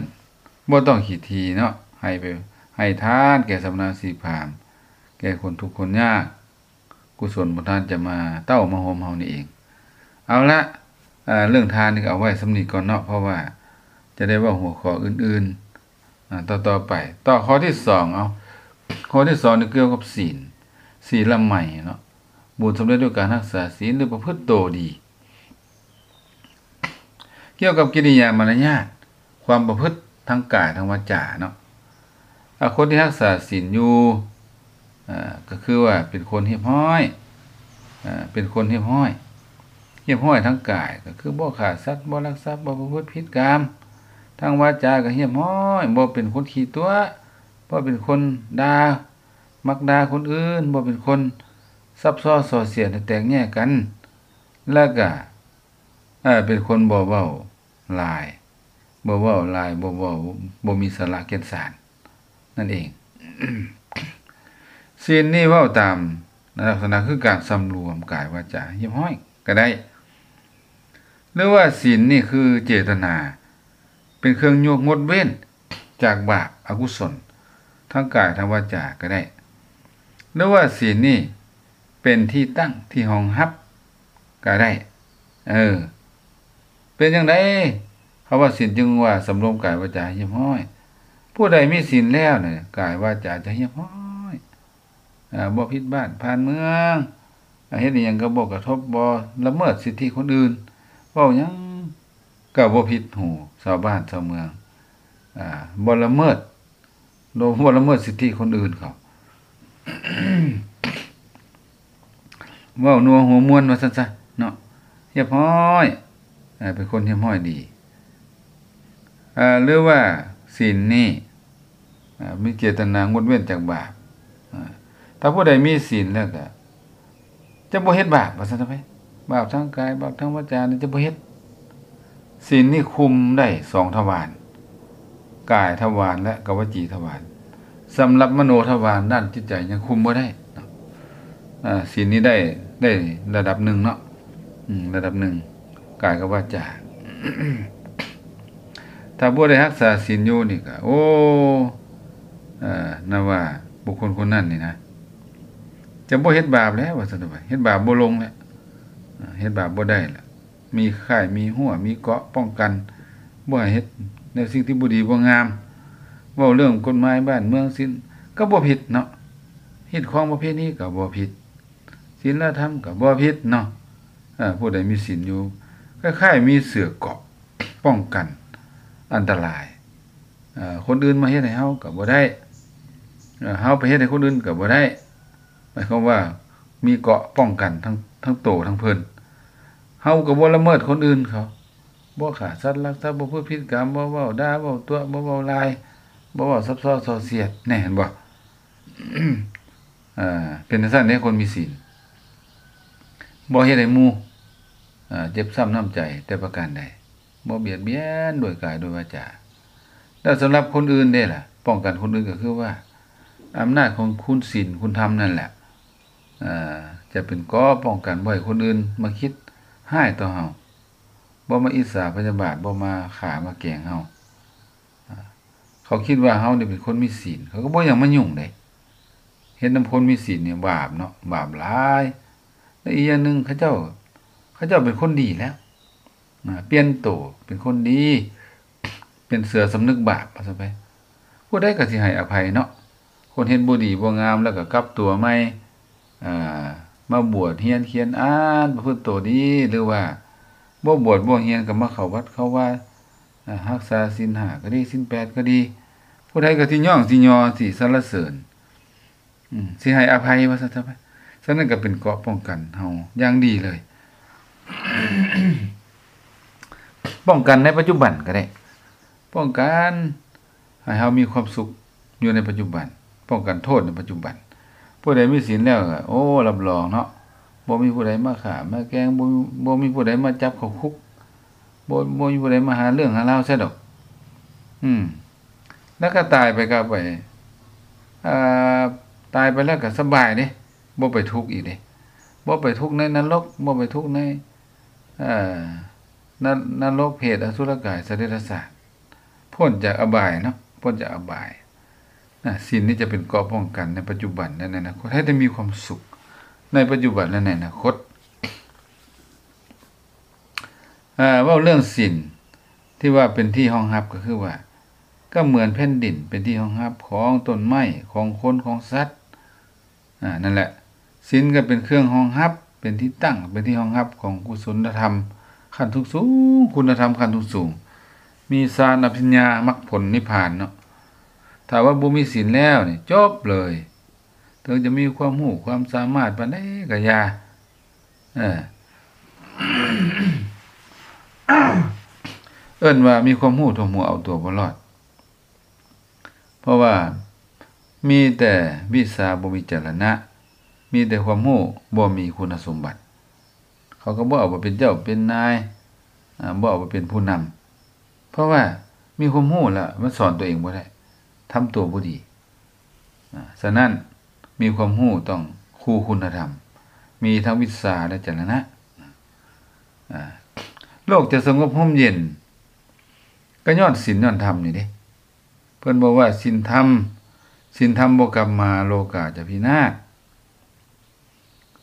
ບໍ່ຕ້ອງຂີ້ຖີ່ເນາະ, ໃຫ້ໄປ ໃຫ້ທານແກ່ສຳມະນະຊີພາມ, ແກ່ຄົນທຸກຄົນຍາກ, ກຸສົນຂອງທ່ານຈະມາເຕົ້າມາໂຮມເຮົານີ້ເອງ. ເອົາລະ, ເອີ ເລື່ອງທານນີ້ກໍເອົາໄວ້ສ່ຳນີ້ກ່ອນເນາະ, ເພາະວ່າຈະໄດ້ເວົ້າຫົວຂໍ້ອື່ນໆ ອາ ຕໍ່ໆໄປ. ຕໍ່ຂໍ້ທີສອງ ເອົາ ຂໍ້ທີສອງນີ້ກ່ຽວກັບສິນ. ສີລະໄໝເນາະ, ບຸນສຳເລັດດ້ວຍການຮັກສາສີນ ຫຼື ປະພຶດໂຕດີ. ກ່ຽວກັບກິລິຍາມາລະຍາດ, ຄວາມປະພຶດທາງກາຍທາງວາຈາເນາະ, ອາ ຄົນທີ່ຮັກສາສິນຢູ່ ອາ ກໍຄືວ່າເປັນຄົນຮຽບຮ້ອຍ, ອາ ເປັນຄົນຮຽບຮ້ອຍ, ຮຽບຮ້ອຍທາງກາຍ ກໍຄືບໍ່ຂ້າສັດ, ບໍ່ລັກຊັບ, ບໍ່ປະພຶດຜິດກາມ, ທາງວາຈາກໍຮຽບຮ້ອຍ, ບໍ່ເປັນຄົນຂີ້ຕົວະ, ບໍ່ເປັນຄົນດ່າ, ມັກດ່າຄົນອື່ນ, ບໍ່ເປັນຄົນຊັບຊ້ອນສໍ້ສຽດໃຫ້ແຕກແຍກກັນ, ແລ້ວກໍ ເປັນຄົນບໍ່ເວົ້າຫຼາຍ, ບໍ່ເວົ້າຫຼາຍ, ບໍ່ເວົ້າ, ບໍ່ມີສາລະແກ່ນສານນັ້ນເອງ. ສິນນີ້ເວົ້າຕາມລັກສະນະຄືການສຳລວມກາຍວາຈາຮຽບຮ້ອຍກໍໄດ້, ຫຼືວ່າສິນນີ້ຄືເຈດຕະນາ ເປັນເຄື່ອງຍົກງົດເວັ້ນຈາກບາບອະກຸສົນທາງກາຍທາງວາຈາກໍໄດ້, ຫຼືວ່າສິນນີ້ເປັນທີ່ຕັ້ງທີ່ຮອງຮັບກໍໄດ້. ເອີ ເປັນຈັ່ງໃດ ຄຳວ່າສິນຈຶ່ງວ່າສຳລວມກາຍວາຈາຮຽບຮ້ອຍ? ຜູ້ໃດມີສິນແລ້ວນະ ກາຍວາຈາຈະຮຽບຮ້ອຍ, ອາ ບໍ່ຜິດບ້ານຜ່ານເມືອງ, ອາ ເຮັດອີ່ຫຍັງກໍບໍ່ກະທົບ, ບໍ່ລະເມີດສິດທິຄົນອື່ນ, ເວົ້າຫຍັງກໍບໍ່ຜິດຫູຊາວບ້ານຊາວເມືອງ, ອາ ບໍ່ລະເມີດ, ບໍ່ລະເມີດສິດທິຄົນອື່ນເຂົາ. ເວົ້ານົວຫົວມ່ວນວ່າຊັ້ນຊະເນາະ, ຮຽບຮ້ອຍ, ເປັນຄົນຮຽບຮ້ອຍດີ. ເອີ ຫຼືວ່າສິນນີ້ ເອີ ມີເຈດຕະນາງົດເວັ້ນຈາກບາບ. ເອີ ຖ້າຜູ້ໃດມີສິນແລ້ວກໍຈະບໍ່ເຮັດບາບ ວ່າຊັ້ນເຖາະໄປ, ບາບທາງກາຍ ບາບທາງວາຈານີ້ຈະບໍ່ເຮັດ. ສິນນີ້ຄຸມໄດ້ສອງທະວານ, ກາຍທະວານ ແລະ ກະວະຈີທະວານ. ສຳລັບມະໂນທະວານດ້ານຈິດໃຈຍັງຄຸມບໍ່ໄດ້ເນາະ. ອາ ສິນນີ້ໄດ້ ໄດ້ລະດັບໜຶ່ງເນາະ, ອືມ ລະດັບໜຶ່ງ ກາຍກັບວາຈາ. ຖ້າບໍ່ໄດ້ຮັກສາສິນຢູ່ນີ້ກະ ໂອ້ ເອີ ນຳວ່າບຸກຄົນຄົນນັ້ນນີ້ນະ ຈະບໍ່ເຮັດບາບແລ້ວ ວ່າຊັ້ນເຖາະໄປ, ເຮັດບາບບໍ່ລົງແລ້ວ, ເຮັດບາບບໍ່ໄດ້ແລ້ວ. ມີຄ້າຍ ມີຮົ້ວ ມີເກາະປ້ອງກັນ ບໍ່ໃຫ້ເຮັດແນວສິ່ງທີ່ບໍ່ດີບໍ່ງາມ. ເວົ້າເລື່ອງກົດໝາຍບ້ານເມືອງສິນກໍບໍ່ຜິດເນາະ, ຮີດຄອງປະເພນີກໍບໍ່ຜິດ, ສິນລະທຳກໍບໍ່ຜິດເນາະ. ເອີ ຜູ້ໃດມີສິນຢູ່ ຄ້າຍໆມີເສື້ອເກາະປ້ອງກັນອັນຕະລາຍ. ເອີ ຄົນອື່ນມາເຮັດໃຫ້ເຮົາກໍບໍ່ໄດ້, ເອີ ເຮົາໄປເຮັດໃຫ້ຄົນອື່ນກໍບໍ່ໄດ້. ໝາຍຄວາມວ່າມີເກາະປ້ອງກັນທັງ ທັງໂຕທັງເພິ່ນ. ເຮົາກໍບໍ່ລະເມີດຄົນອື່ນເຂົາ, ບໍ່ຂ້າສັດລັກຊັບ, ບໍ່ປະພຶດຜິດກາມ, ບໍ່ເວົ້າດ່າເວົ້າຕົວະ, ບໍ່ເວົ້າລາຍ, ບໍ່ເວົ້າຊັບຊ້ອນສໍ້ສຽດ. ແນ່ ເຫັນບໍ່? ເອີ ເປັນຈັ່ງຊັ້ນເດ້ ຄົນມີສິນ ບໍ່ເຮັດໃຫ້ໝູ່ ເອີ ເຈັບຊ້ຳນ້ຳໃຈແຕ່ປະການໃດ, ບໍ່ບຽດບຽນດ້ວຍກາຍດ້ວຍວາຈາ. ແລ້ວສຳລັບຄົນອື່ນເດ້ລະ? ປ້ອງກັນຄົນອື່ນກໍຄືວ່າ ອຳນາດຂອງຄຸນສິນຄຸນທຳນັ້ນແຫຼະ ເອີ ຈະເປັນເກາະປ້ອງກັນບໍ່ໃຫ້ຄົນອື່ນມາຄິດຮ້າຍຕໍ່ເຮົາ, ບໍ່ມາອິດສາພະຍາບາດ, ບໍ່ມາຂ້າມາແກງເຮົາ. ເຂົາຄິດວ່າເຮົານີ້ເປັນຄົນມີສິນ ເຂົາກໍບໍ່ຢາກມາຫຍຸ້ງເດ້. ເຮັດນຳຄົນມີສິນນີ້ບາບເນາະ, ບາບຫຼາຍ. ແລະ ອີກຢ່າງໜຶ່ງ ເຂົາເຈົ້າ ເຂົາເຈົ້າເປັນຄົນດີແລ້ວ, ນະ ປ່ຽນໂຕເປັນຄົນດີ, ເປັນເສືອສຳນຶກບາບວ່າຊັ້ນໄປ. ຜູ້ໃດກໍຊິໃຫ້ອະໄພເນາະ, ຄົນເຮັດບໍ່ດີບໍ່ງາມແລ້ວກໍກັບຕົວໃໝ່, ເອີ ມາບວດຮຽນຂຽນອ່ານ ປະພຶດໂຕດີ, ຫຼືວ່າບໍ່ບວດບໍ່ຮຽນກໍມາເຂົ້າວັດເຂົ້າວາ, ເອີ ຮັກສາສິນຫ້າກໍດີ ສິນແປດກໍດີ, ຜູ້ໃດກໍຊິຍ້ອງ ຊິຍໍ ຊິສັນລະເສີນ. ອືມ ຊິໃຫ້ອະໄພວ່າຊັ້ນເຖາະໄປ. ສະນັ້ນກໍເປັນເກາະປ້ອງກັນເຮົາຢ່າງດີເລີຍ. ປ້ອງກັນໃນປັດຈຸບັນກໍໄດ້, ປ້ອງກັນໃຫ້ເຮົາມີຄວາມສຸກຢູ່ໃນປັດຈຸບັນ, ປ້ອງກັນໂທດໃນປັດຈຸບັນ. ຜູ້ໃດມີສິນແລ້ວກໍ ໂອ້ ຮັບຮອງເນາະ, ບໍ່ມີຜູ້ໃດມາຂ້າມາແກງ, ບໍ່ ບໍ່ມີຜູ້ໃດມາຈັບເຂົ້າຄຸກ, ບໍ່ ບໍ່ມີຜູ້ໃດມາຫາເລື່ອງຫາລາວໃສ່ດອກ. ອືມ ແລ້ວກໍຕາຍໄປກໍໄປ ເອີ ຕາຍໄປແລ້ວກໍສະບາຍເດ້, ບໍ່ໄປທຸກອີກເດ້, ບໍ່ໄປທຸກໃນນະລົກ, ບໍ່ໄປທຸກໃນ ເອີ ນະ ນະລົກ, ເປດ, ອະສຸລະກາຍ, ສັດເດຍລະສານ, ພົ້ນຈາກອະບາຍເນາະ, ພົ້ນຈາກອະບາຍ. ນະ ສິນນີ້ຈະເປັນເກາະປ້ອງກັນໃນປັດຈຸບັນ ແລະ ໃນອະນາຄົດ, ໃຫ້ໄດ້ມີຄວາມສຸກໃນປັດຈຸບັນ ແລະ ໃນອະນາຄົດ. ເອີ ເວົ້າເລື່ອງສິນທີ່ວ່າເປັນທີ່ຮອງຮັບ ກໍຄືວ່າ ກໍເໝືອນແຜ່ນດິນເປັນທີ່ຮອງຮັບຂອງຕົ້ນໄມ້ ຂອງຄົນ ຂອງສັດ. ອາ ນັ້ນແຫຼະ ສິນກໍເປັນເຄື່ອງຮອງຮັບ, ເປັນທີ່ຕັ້ງ, ເປັນທີ່ຮອງຮັບຂອງກຸສົນນະທຳຂັ້ນສູງໆ, ຄຸນນະທຳຂັ້ນສູງໆ, ມີຊານ, ອະພິນຍາ, ມັກຜົນ, ນິບພານເນາະ. ຖ້າວ່າບໍ່ມີສິນແລ້ວນີ້ ຈົບເລີຍ. ເຖິງຈະມີຄວາມຮູ້ຄວາມສາມາດປານໃດກໍຢ່າ. ເອີ ເອີ້ນວ່າມີຄວາມຮູ້ທົ່ວຫົວ ເອົາຕົວບໍ່ລອດ. ເພາະວ່າມີແຕ່ວິຊາ ບໍ່ມີຈະລະນະ, ມີແຕ່ຄວາມຮູ້ ບໍ່ມີຄຸນນະສົມບັດ. ເຂົາກໍບໍ່ເອົາໄປເປັນເຈົ້າເປັນນາຍ, ອາ, ບໍ່ເອົາໄປເປັນຜູ້ນຳ. ເພາະວ່າມີຄວາມຮູ້ແລ້ວ ມັນສອນຕົວເອງບໍ່ໄດ້, ທຳຕົວບໍ່ດີ. ອາ, ສະນັ້ນ ມີຄວາມຮູ້ຕ້ອງຄູ່ຄຸນນະທຳ, ມີທັງວິຊາ ແລະ ຈະລະນະ. ອາ, ໂລກຈະສະຫງົບຮົ່ມເຢັນ ກໍຍ້ອນສິນຍ້ອນທຳນີ້ເດ້. ເພິ່ນບອກວ່າ ສິນທຳ, ສິນທຳບໍ່ກັບມາ ໂລກາຈະພິນາດ.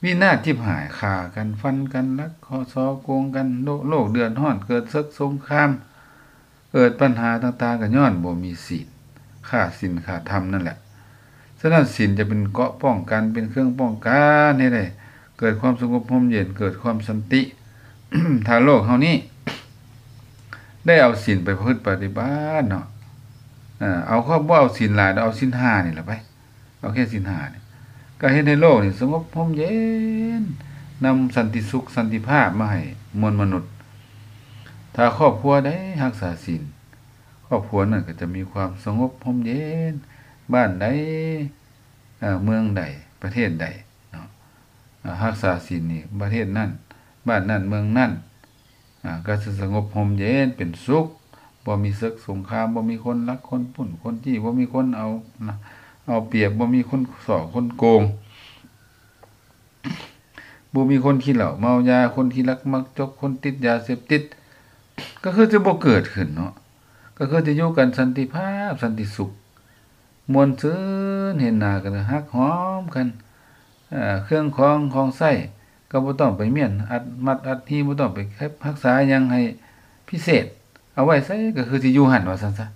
ວິນາດຈິບຫາຍ, ຂ້າກັນ, ຟັນກັນ, ລັກເຄາະສໍ້ໂກງກັນ, ໂລກ, ໂລກເດືອດຮ້ອນ, ເກີດເສິກສົງຄາມ, ເກີດບັນຫາຕ່າງໆ ກໍຍ້ອນບໍ່ມີສິນ, ຂາດສິນຂາດທຳນັ້ນແຫຼະ. ສະນັ້ນ ສິນຈະເປັນເກາະປ້ອງກັນ, ເປັນເຄື່ອງປ້ອງກັນໃຫ້ໄດ້ເກີດຄວາມສະຫງົບຮົ່ມເຢັນ, ເກີດຄວາມສັນຕິ. ຖ້າໂລກເຮົານີ້ໄດ້ເອົາສິນໄປປະພຶດປະຕິບັດເນາະ, ເອົາ, ບໍ່ເອົາສິນຫຼາຍດອກ, ເອົາສິນຫ້ານີ້ລະໄປ. ເອົາແຄ່ສິນຫ້ານີ້ ກໍເຮັດໃຫ້ໂລກນີ້ສະຫງົບຮົ່ມເຢັນ, ນຳສັນຕິສຸກ, ສັນຕິພາບມາໃຫ້ມວນມະນຸດ. ຖ້າຄອບຄົວໃດຮັກສາສິນ, ຄອບຄົວນັ້ນກໍຈະມີຄວາມສະຫງົບຮົ່ມເຢັນ. ບ້ານໃດ, ເອີ, ເມືອງໃດ, ປະເທດໃດເນາະ, ເອີ, ຮັກສາສິນນີ້, ປະເທດນັ້ນ, ບ້ານນັ້ນ, ເມືອງນັ້ນ, ອາ, ກໍຈະສະຫງົບຮົ່ມເຢັນເປັນສຸກ, ບໍ່ມີເສິກສົງຄາມ, ບໍ່ມີຄົນລັກຄົນປຸ້ນຄົນຈີ້, ບໍ່ມີຄົນເອົາ, ເອົາປຽບ, ບໍ່ມີຄົນສໍ້ຄົນໂກງ, ບໍ່ມີຄົນຂີ້ເຫຼົ້າເມົາຢາ, ຄົນຂີ້ລັກມັກຈົກ, ຄົນຕິດຢາເສບຕິດ, ກໍຄືຈະບໍ່ເກີດຂຶ້ນເນາະ, ກໍຄືຈະຢູ່ກັນສັນຕິພາບ, ສັນຕິສຸກ. ມ່ວນຊື່ນ, ເຫັນໜ້າກັນກໍຮັກຫອມກັນ, ເອີ, ເຄື່ອງຂອງ, ຂອງໃຊ້ກໍບໍ່ຕ້ອງໄປມ້ຽນອັດມັດອັດຮີ, ບໍ່ຕ້ອງໄປເກັບຮັກສາຫຍັງໃຫ້ພິເສດ, ເອົາໄວ້ໃສກໍຄືຊິຢູ່ຫັ້ນ ວ່າຊັ້ນຊະ.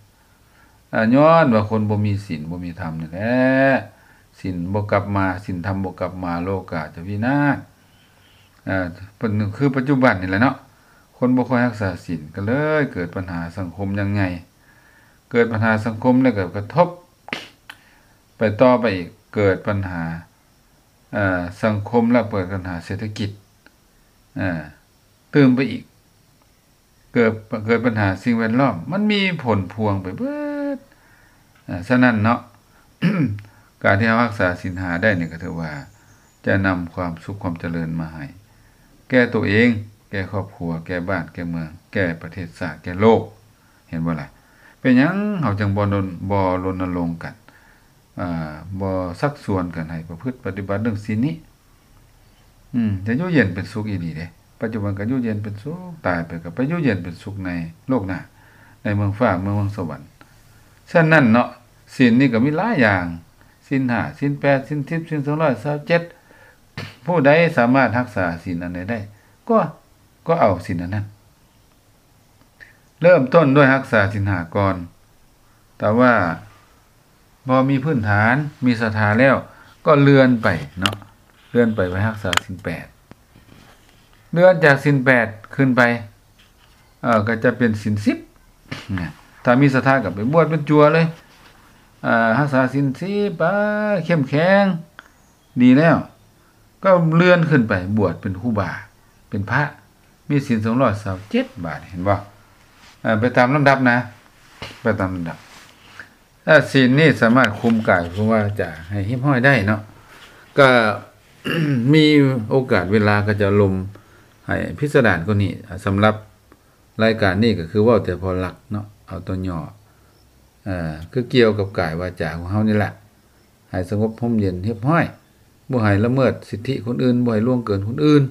ອາ, ຍ້ອນວ່າຄົນບໍ່ມີສິນ, ບໍ່ມີທຳນີ້ແຫຼະ, ສິນບໍ່ກັບມາ, ສິນທຳບໍ່ກັບມາ, ໂລກາຈະວິນາດ. ອາ, ເປັນຄືປັດຈຸບັນນີ້ແຫຼະເນາະ, ຄົນບໍ່ຄ່ອຍຮັກສາສິນ ກໍເລີຍເກີດບັນຫາສັງຄົມຢ່າງໃຫຍ່. ເກີດບັນຫາສັງຄົມແລ້ວກໍກະທົບໄປຕໍ່ໄປອີກ, ເກີດບັນຫາ, ເອີ, ສັງຄົມແລ້ວເກີດບັນຫາເສດຖະກິດ, ເອີ, ຕື່ມໄປອີກ, ເກີດ, ເກີດບັນຫາສິ່ງແວດລ້ອມ, ມັນມີຜົນພວງໄປເບິດ. ເອີ, ສະນັ້ນເນາະ, ການທີ່ເຮົາຮັກສາສິນຫ້າໄດ້ນີ້ ກໍຖືວ່າຈະນຳຄວາມສຸກຄວາມຈະເລີນມາໃຫ້ແກ່ຕົວເອງ, ແກ່ຄອບຄົວ, ແກ່ບ້ານ, ແກ່ເມືອງ, ແກ່ປະເທດຊາດ, ແກ່ໂລກ. ເຫັນບໍ່ລະ? ເປັນຫຍັງເຮົາຈຶ່ງບໍ່ລົນ, ບໍ່ລົນນະລົງກັນ, ອາ, ບໍ່ຊັກຊວນກັນໃຫ້ປະພຶດປະຕິບັດເລື່ອງສິນນີ້? ອືມ, ຈະຢູ່ເຢັນເປັນສຸກອີ່ຫຼີເດ້. ປັດຈຸບັນກໍຢູ່ເຢັນເປັນສຸກ, ຕາຍໄປກໍໄປຢູ່ເຢັນເປັນສຸກໃນໂລກໜ້າ, ໃນເມືອງຟ້າ, ເມືອງ, ເມືອງສະຫວັນ. ສະນັ້ນເນາະ, ສິນນີ້ກໍມີຫຼາຍຢ່າງ, ສິນຫ້າ, ສິນແປດ, ສິນສິບ, ສິນສອງຮ້ອຍຊາວເຈັດ. ຜູ້ໃດສາມາດຮັກສາສິນອັນໃດໄດ້, ກໍ, ກໍເອົາສິນອັນນັ້ນ. ເລີ່ມຕົ້ນດ້ວຍຮັກສາສິນຫ້າກ່ອນ. ຖ້າວ່າພໍມີພື້ນຖານ, ມີສັດທາແລ້ວ, ກໍເລື່ອນໄປເນາະ, ເລື່ອນໄປໄປຮັກສາສິນແປດ. ເລື່ອນຈາກສິນແປດຂຶ້ນໄປ, ເອີ, ກໍຈະເປັນສິນສິບ. ຖ້າມີສັດທາກໍໄປບວດເປັນຈົວເລີຍ, ເອີ, ຮັກສາສິນສິບໄປ, ເຂັ້ມແຂງ, ດີແລ້ວ. ກໍເລື່ອນຂຶ້ນໄປບວດເປັນຄູບາ, ເປັນພະ, ມີສິນສອງຮ້ອຍຊາວເຈັດບາດ, ເຫັນບໍ່? ເອີ, ໄປຕາມລຳດັບນະ, ໄປຕາມລຳດັບ. ເອີ, ສິນນີ້ສາມາດຄຸມກາຍ, ຄຸມວາຈາໃຫ້ຮຽບຮ້ອຍໄດ້ເນາະ. ກໍມີໂອກາດເວລາກໍຈະລົມໃຫ້ພິສະດານກວ່ານີ້. ສຳລັບລາຍການນີ້ກໍຄືເວົ້າແຕ່ພໍຫຼັກເນາະ, ເອົາຕົວຫຍໍ້, ເອີ, ຄືກ່ຽວກັບກາຍວາຈາຂອງເຮົານີ້ແຫຼະ. ໃຫ້ສະຫງົບຮົ່ມເຢັນຮຽບຮ້ອຍ, ບໍ່ໃຫ້ລະເມີດສິດທິຄົນອື່ນ, ບໍ່ໃຫ້ລ່ວງເກີນຄົນອື່ນ.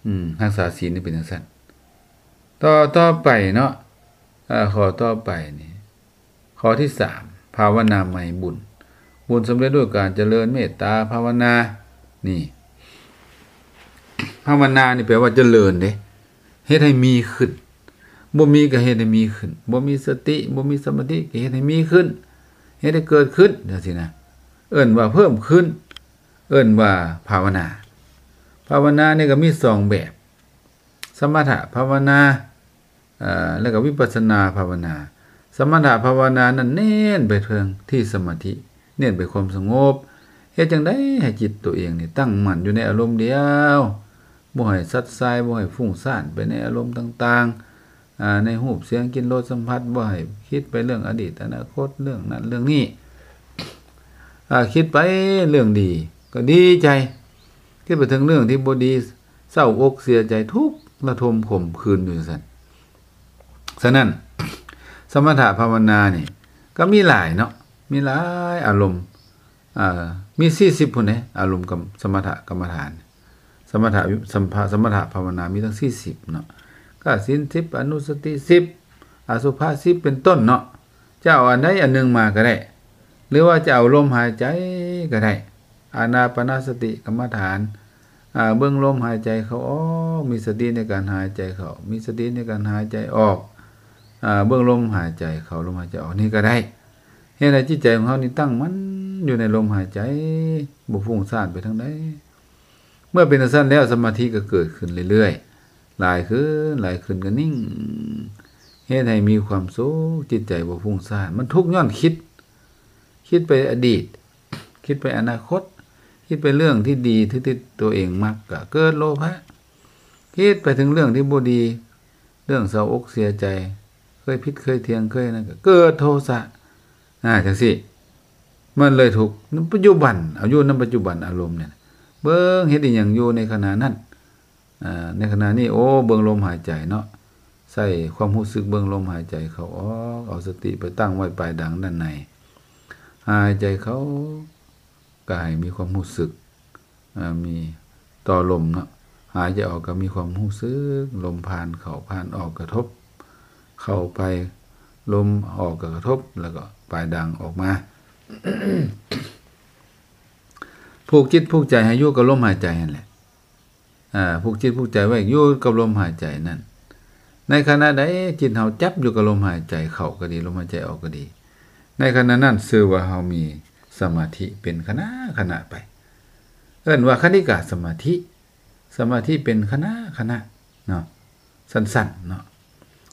ອືມ, ຮັກສາສິນນີ້ເປັນຈັ່ງຊັ້ນ. ຕໍ່, ຕໍ່ໄປເນາະ, ເອີ, ຂໍ້ຕໍ່ໄປນີ້, ຂໍ້ທີສາມ, ພາວະນາໃໝ່ບຸນ. ບຸນສຳເລັດດ້ວຍການຈະເລີນເມດຕາພາວະນາ. ນີ້, ພາວະນານີ້ແປວ່າຈະເລີນເດ້. ເຮັດໃຫ້ມີຂຶ້ນ, ບໍ່ມີກໍເຮັດໃຫ້ມີຂຶ້ນ, ບໍ່ມີສະຕິ, ບໍ່ມີສະມາທິ, ກໍເຮັດໃຫ້ມີຂຶ້ນ, ເຮັດໃຫ້ເກີດຂຶ້ນ, ຈັ່ງຊີ້ນະ, ເອີ້ນວ່າເພີ່ມຂຶ້ນ. ເອີ້ນວ່າພາວະນາ. ພາວະນານີ້ກໍມີສອງແບບ, ສະມະຖະພາວະນາ ເອີ ແລ້ວກໍວິປັດສະນາພາວະນາ. ສະມະຖະພາວະນານັ້ນເນັ້ນໄປເຖິງທີ່ສະມາທິ, ເນັ້ນໄປຄວາມສະຫງົບ, ເຮັດຈັ່ງໃດໃຫ້ຈິດຕົວເອງນີ້ຕັ້ງໝັ້ນຢູ່ໃນອາລົມດຽວ, ບໍ່ໃຫ້ສັດສາຍ, ບໍ່ໃຫ້ຟຸ້ງຊານໄປໃນອາລົມຕ່າງໆ, ອາ ໃນຮູບ, ສຽງ, ກິ່ນ, ລົດ, ສຳຜັດ, ບໍ່ໃຫ້ຄິດໄປເລື່ອງອະດີດ, ອະນາຄົດ, ເລື່ອງນັ້ນເລື່ອງນີ້. ອາ ຄິດໄປເລື່ອງດີກໍດີໃຈ, ຄິດໄປເຖິງເລື່ອງທີ່ບໍ່ດີ ເສົ້າອົກເສຍໃຈ ທຸກລະທົມຂົມຂືນຢູ່ຈັ່ງຊັ້ນ. ສະນັ້ນ ສະມະຖະພາວະນານີ້ກໍມີຫຼາຍເນາະ, ມີຫຼາຍອາລົມ, ເອີ ມີສີ່ສິບພຸ້ນເດ້ ອາລົມກັບສະມະຖະກຳມະຖານ. ສະມະຖະ ສຳພະ ສະມະຖະພາວະນາມີຕັ້ງສີ່ສິບເນາະ, ກະສິນສິບ ອະນຸສະຕິສິບ ອະສຸພະສິບ ເປັນຕົ້ນເນາະ. ຈະເອົາອັນໃດອັນໜຶ່ງມາກໍໄດ້ ຫຼືວ່າຈະເອົາລົມຫາຍໃຈກໍໄດ້, ອານາປານະສະຕິກຳມະຖານ ອາ ເບິ່ງລົມຫາຍໃຈເຂົ້າອອກ, ມີສະຕິໃນການຫາຍໃຈເຂົ້າ, ມີສະຕິໃນການຫາຍໃຈອອກ, ອາ ເບິ່ງລົມຫາຍໃຈເຂົ້າ, ລົມຫາຍໃຈອອກ ນີ້ກໍໄດ້. ເຮັດໃຫ້ຈິດໃຈຂອງເຮົານີ້ຕັ້ງໝັ້ນຢູ່ໃນລົມຫາຍໃຈ, ບໍ່ຟຸ້ງຊານໄປທາງໃດ. ເມື່ອເປັນຈັ່ງຊັ້ນແລ້ວ ສະມາທິກໍເກີດຂຶ້ນເລື້ອຍໆ, ຫຼາຍຂຶ້ນ, ຫຼາຍຂຶ້ນກໍນິ່ງ, ເຮັດໃຫ້ມີຄວາມສຸກ, ຈິດໃຈບໍ່ຟຸ້ງຊານ. ມັນທຸກຍ້ອນຄິດ, ຄິດໄປອະດີດ, ຄິດໄປອະນາຄົດ, ຄິດໄປເລື່ອງທີ່ດີທີ່ຕົວເອງມັກ ກໍເກີດໂລພະ, ຄິດໄປເຖິງເລື່ອງທີ່ບໍ່ດີ, ເລື່ອງເສົ້າອົກເສຍໃຈ, ເຄີຍຜິດເຄີຍຖຽງເຄີຍນັ້ນ ກໍເກີດໂທສະ. ອາ ຈັ່ງຊີ້ ມັນເລີຍທຸກ. ປັດຈຸບັນ, ເອົາຢູ່ນຳປັດຈຸບັນອາລົມນີ້, ເບິ່ງເຮັດອີ່ຫຍັງຢູ່ໃນຂະນະນັ້ນ. ອາ ໃນຂະນະນີ້ ໂອ້ ເບິ່ງລົມຫາຍໃຈເນາະ, ໃຊ້ຄວາມຮູ້ສຶກເບິ່ງລົມຫາຍໃຈເຂົ້າອອກ, ເອົາສະຕິໄປຕັ້ງໄວ້ປາຍດາງດ້ານໃນ. ຫາຍໃຈເຂົ້າ ກໍໃຫ້ມີຄວາມຮູ້ສຶກ ອາ ມີຕໍ່ລົມເນາະ, ຫາຍໃຈອອກກໍມີຄວາມຮູ້ສຶກ ລົມຜ່ານເຂົ້າຜ່ານອອກກະທົບເຂົ້າໄປ, ລົມອອກກໍກະທົບ ແລ້ວກໍປາຍດາງອອກມາ. ຜູກຈິດຜູກໃຈໃຫ້ຢູ່ກັບລົມຫາຍໃຈຫັ້ນແຫຼະ. ອາ ຜູກຈິດຜູກໃຈໄວ້ຢູ່ກັບລົມຫາຍໃຈນັ້ນ. ໃນຂະນະໃດຈິດເຮົາຈັບຢູ່ກັບລົມຫາຍໃຈເຂົ້າກໍດີ, ລົມຫາຍໃຈອອກກໍດີ, ໃນຂະນະນັ້ນຊື່ວ່າເຮົາມີສະມາທິເປັນຂະນະຂະນະໄປ. ເອີ້ນວ່າຄະນິກາສະມາທິ, ສະມາທິເປັນຂະນະຂະນະເນາະ, ສັ້ນໆເນາະ.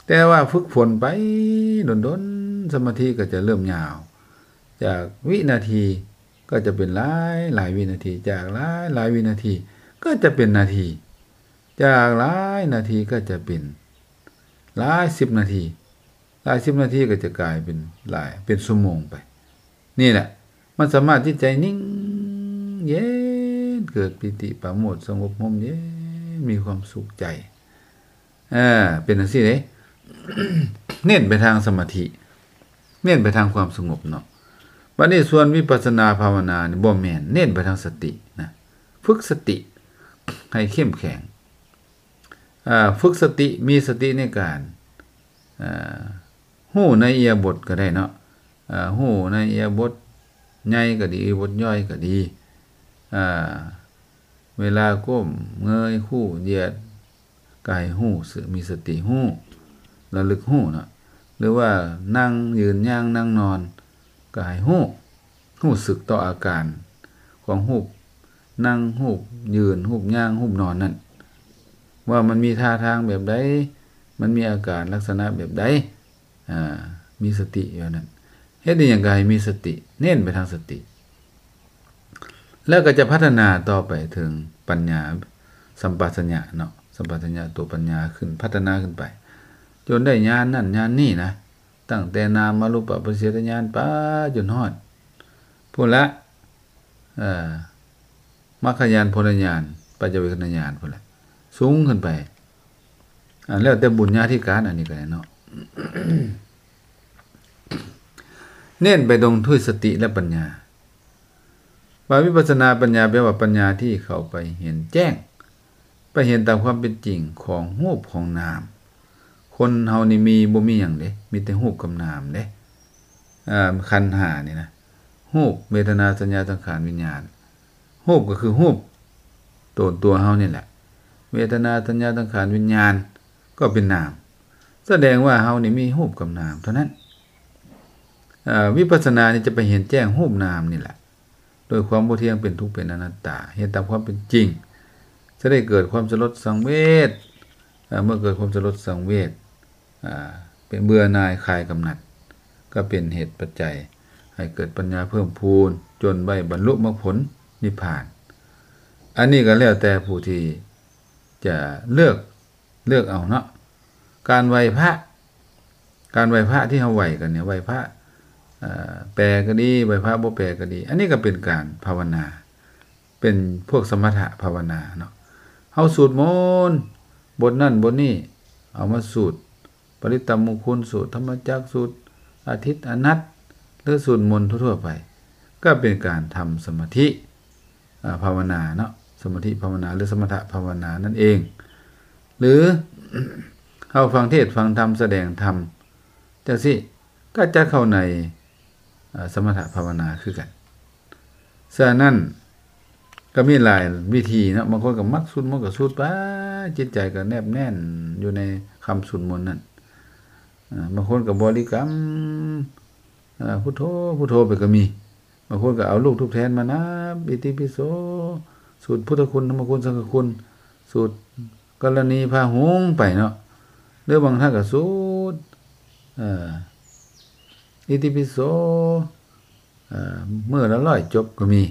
ແຕ່ວ່າຝຶກຝົນໄປດົນໆ ສະມາທິກໍຈະເລີ່ມຍາວ, ຈາກວິນາທີກໍຈະເປັນຫຼາຍໆວິນາທີ, ຈາກຫຼາຍໆວິນາທີກໍຈະເປັນນາທີ, ຈາກຫຼາຍນາທີກໍຈະເປັນຫຼາຍສິບນາທີ, ຫຼາຍສິບນາທີກໍຈະກາຍເປັນຫຼາຍ ເປັນຊົ່ວໂມງໄປ. ນີ້ແຫຼະ ມັນສາມາດຈິດໃຈນິ່ງເຢັນ, ເກີດປີຕິປາໂມດ, ສະຫງົບຮົ່ມເຢັນ, ມີຄວາມສຸກໃຈ. ເອີ ເປັນຈັ່ງຊີ້ເດ້, ເນັ້ນໄປທາງສະມາທິ, ເນັ້ນໄປທາງຄວາມສະຫງົບເນາະ. ບັດນີ້ສ່ວນວິປັດສະນາພາວະນານີ້ບໍ່ແມ່ນ, ເນັ້ນໄປທາງສະຕິນະ, ຝຶກສະຕິໃຫ້ເຂັ້ມແຂງ. ອາ ຝຶກສະຕິ, ມີສະຕິໃນການ ອາ ຮູ້ໃນອິລິຍາບົດກໍໄດ້ເນາະ, ອາ ຮູ້ໃນອິລິຍາບົດໃຫຍ່ກໍດີ, ອິລິຍາບົດຍ່ອຍກໍດີ, ອາ ເວລາກົ້ມເງີຍຄູ່ຢຽດກໍໃຫ້ຮູ້, ມີສະຕິຮູ້, ລະລຶກຮູ້ເນາະ. ຫຼືວ່ານັ່ງ, ຢືນ, ຍ່າງ, ນັ່ງ, ນອນ ກໍໃຫ້ຮູ້, ຮູ້ສຶກຕໍ່ອາການຂອງຮູບນັ່ງ, ຮູບຢືນ, ຮູບຍ່າງ, ຮູບນອນນັ້ນ, ວ່າມັນມີທ່າທາງແບບໃດ, ມັນມີອາການລັກສະນະແບບໃດ, ອາ ມີສະຕິຢູ່ນັ້ນ. ເຮັດອີ່ຫຍັງກໍໃຫ້ມີສະຕິ, ເນັ້ນໄປທາງສະຕິ, ແລ້ວກໍຈະພັດທະນາຕໍ່ໄປເຖິງປັນຍາສຳປະຊັນຍະເນາະ, ສຳປະຊັນຍະຕົວປັນຍາຂຶ້ນ, ພັດທະນາຂຶ້ນໄປ ຈົນໄດ້ຍານນັ້ນຍານນີ້ນະ. ຕັ້ງແຕ່ນາມາຮູປະປະລິເສດຍານໄປຈົນຮອດພຸ້ນລະ ເອີ ມັກຂະຍານ, ຜົນຍານ, ປັດຈະເວກຂະນະຍານພຸ້ນລະ, ສູງຂຶ້ນໄປ. ອາ ແລ້ວແຕ່ບຸນຍາທິການ ອັນນີ້ກໍໄດ້ເນາະ. ເນັ້ນໄປຕົງທຸຍສະຕິ ແລະ ປັນຍາ. ວ່າວິປັດສະນາປັນຍາ ແປວ່າປັນຍາທີ່ເຂົ້າໄປເຫັນແຈ້ງ, ໄປເຫັນຕາມຄວາມເປັນຈິງຂອງຮູບຂອງນາມ. ຄົນເຮົານີ້ມີ ບໍ່ມີຫຍັງເດ້, ມີແຕ່ຮູບກັບນາມເດ້. ເອີ ຂັນຫ້ານີ້ນະ, ຮູບ, ເວທະນາ, ສັນຍາ, ສັງຂານ, ວິນຍານ. ຮູບກໍຄືຮູບໂຕນຕົວເຮົານີ້ແຫຼະ, ເວທະນາ, ສັນຍາ, ສັງຂານ, ວິນຍານ ກໍເປັນນາມ. ສະແດງວ່າເຮົານີ້ມີຮູບກັບນາມເທົ່ານັ້ນ. ເອີ ວິປັດສະນານີ້ຈະໄປເຫັນແຈ້ງຮູບນາມນີ້ແຫຼະ. ໂດຍຄວາມບໍ່ທ່ຽງ ເປັນທຸກ ເປັນອະນັດຕາ ເຮັດຕາມຄວາມເປັນຈິງ ຈະໄດ້ເກີດຄວາມສະຫຼົດສັງເວດ. ເມື່ອເກີດຄວາມສະຫຼົດສັງເວດ ເປັນເບື່ອໜ່າຍ ຄາຍກຳໜັດ ກໍເປັນເຫດປັດໄຈໃຫ້ເກີດປັນຍາເພີ່ມພູນ ຈົນໄດ້ບັນລຸມັກຜົນນິບພານ. ອັນນີ້ກໍແລ້ວແຕ່ຜູ້ທີ່ຈະເລືອກ ເລືອກເອົາເນາະ. ການໄຫວ້ພະ ການໄຫວ້ພະທີ່ເຮົາໄຫວ້ກັນນີ້ ໄຫວ້ພະ ເອີ ແປກໍດີ ໄຫວ້ພະບໍ່ແປກໍດີ ອັນນີ້ກໍເປັນການພາວະນາ ເປັນພວກສະມະຖະພາວະນາເນາະ. ເຮົາສູດມົນ ບົດນັ້ນບົດນີ້ ເອົາມາສູດ ປະລິດຕະມຸງຄຸນສູດ ທຳມະຈັກສູດ ອາທິດອະນັດ ຫຼື ສູດມົນທົ່ວໆໄປ ກໍເປັນການທຳສະມາທິ ອາ ພາວະນາເນາະ ສະມາທິພາວະນາ ຫຼື ສະມະຖະພາວະນານັ້ນເອງ ຫຼື ເຮົາຟັງເທດຟັງທຳ ສະແດງທຳຈັ່ງຊີ້ ກໍຈັດເຂົ້າໃນ ອາ ສະມະຖະພາວະນາຄືກັນ. ສະນັ້ນ ກໍມີຫຼາຍວິທີເນາະ ບາງຄົນກໍມັກສູດມົນກໍສູດໄປ ຈິດໃຈກໍແນບແໜ້ນຢູ່ໃນຄຳສູດມົນນັ້ນ. ອາ ບາງຄົນກໍບໍລິກຳ ອາ ພຸດໂທ ພຸດໂທໄປກໍມີ. ບາງຄົນກໍເອົາລູກທູບທຽນມານັບ ອິຕິປິໂສ ສູດພຸດທະຄຸນ ທຳມະຄຸນ ສັງຄະຄຸນ ສູດກໍລະນີພາຫຸງໄປເນາະ ຫຼືບາງທ່ານກໍສູດ ເອີ ອິຕິປິໂສ ເອີ ມື້ລະຮ້ອຍຈົບກໍມີ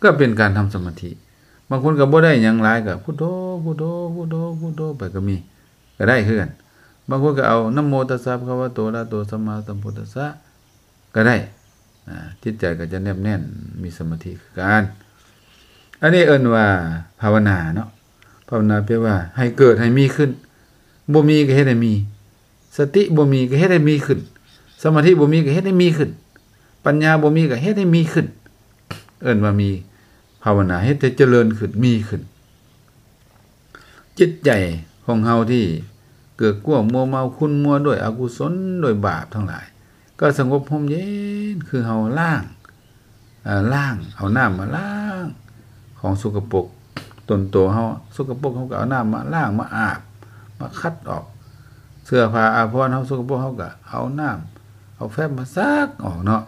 ກໍເປັນການທຳສະມາທິ. ບາງຄົນກໍບໍ່ໄດ້ຫຍັງຫຼາຍ ກໍພຸດໂທ ພຸດໂທ ພຸດໂທ ພຸດໂທໄປກໍມີ ກໍໄດ້ຄືກັນ. ບາງຄົນກໍເອົາ ນະໂມຕັດສະ ພະຄະວະໂຕ ອະລະຫະໂຕ ສຳມາສຳພຸດທັດສະ ກໍໄດ້ ອາ ຈິດໃຈກໍຈະແນບແໜ້ນ ມີສະມາທິຄືກັນ. ອັນນີ້ເອີ້ນວ່າພາວະນາເນາະ ພາວະນາແປວ່າໃຫ້ເກີດໃຫ້ມີຂຶ້ນ ບໍ່ມີກໍເຮັດໃຫ້ມີ ສະຕິບໍ່ມີກໍເຮັດໃຫ້ມີຂຶ້ນ ສະມາທິບໍ່ມີກໍເຮັດໃຫ້ມີຂຶ້ນ ປັນຍາບໍ່ມີກໍເຮັດໃຫ້ມີຂຶ້ນ ເອີ້ນວ່າມີພາວະນາ ເຮັດໃຫ້ຈະເລີນຂຶ້ນ ມີຂຶ້ນ. ຈິດໃຈຂອງເຮົາທີ່ເກີກກວມມົວເມົາຂຸ້ນມົວດ້ວຍອະກຸສົນ ດ້ວຍບາບທັງຫຼາຍ ກໍສະຫງົບຮົ່ມເຢັນ ຄືເຮົາລ້າງ ເອີ ລ້າງ ເອົານ້ຳມາລ້າງຂອງສົກກະປົກຕົນໂຕເຮົາ ສົກກະປົກເຮົາກໍເອົານ້ຳມາລ້າງ ມາອາບ ມາຂັດອອກ ເສື້ອຜ້າອາພອນເຮົາສົກກະປົກ ເຮົາກໍເອົານ້ຳ ເອົາແຟບມາຊັກອອກເນາະ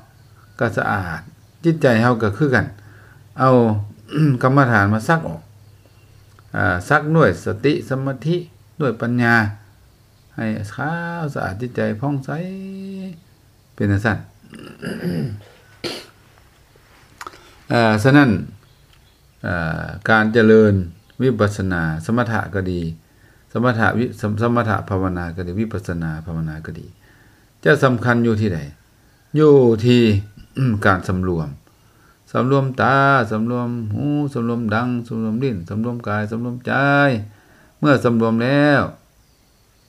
ກໍສະອາດ. ຈິດໃຈເຮົາກໍຄືກັນ ເອົາກຳມະຖານມາຊັກອອກ ອາ ຊັກດ້ວຍສະຕິ ສະມາທິ ດ້ວຍປັນຍາ ໃຫ້ຂາວສະອາດ ຈິດໃຈຜ່ອງໃສ ເປັນຈັ່ງຊັ້ນ. ເອີ ສະນັ້ນ ເອີ ການຈະເລີນວິປັດສະນາ ສະມະຖະກໍດີ ສະມະຖະວິ ສະ ສະມະຖະພາວະນາກໍດີ ວິປັດສະນາພາວະນາກໍດີ ຈະສຳຄັນຢູ່ທີ່ໃດ? ຢູ່ທີ່ ການສຳລວມ ສຳລວມຕາ ສຳລວມຫູ ສຳລວມດັງ ສຳລວມລີ້ນ ສຳລວມກາຍ ສຳລວມໃຈ. ເມື່ອສຳລວມແລ້ວ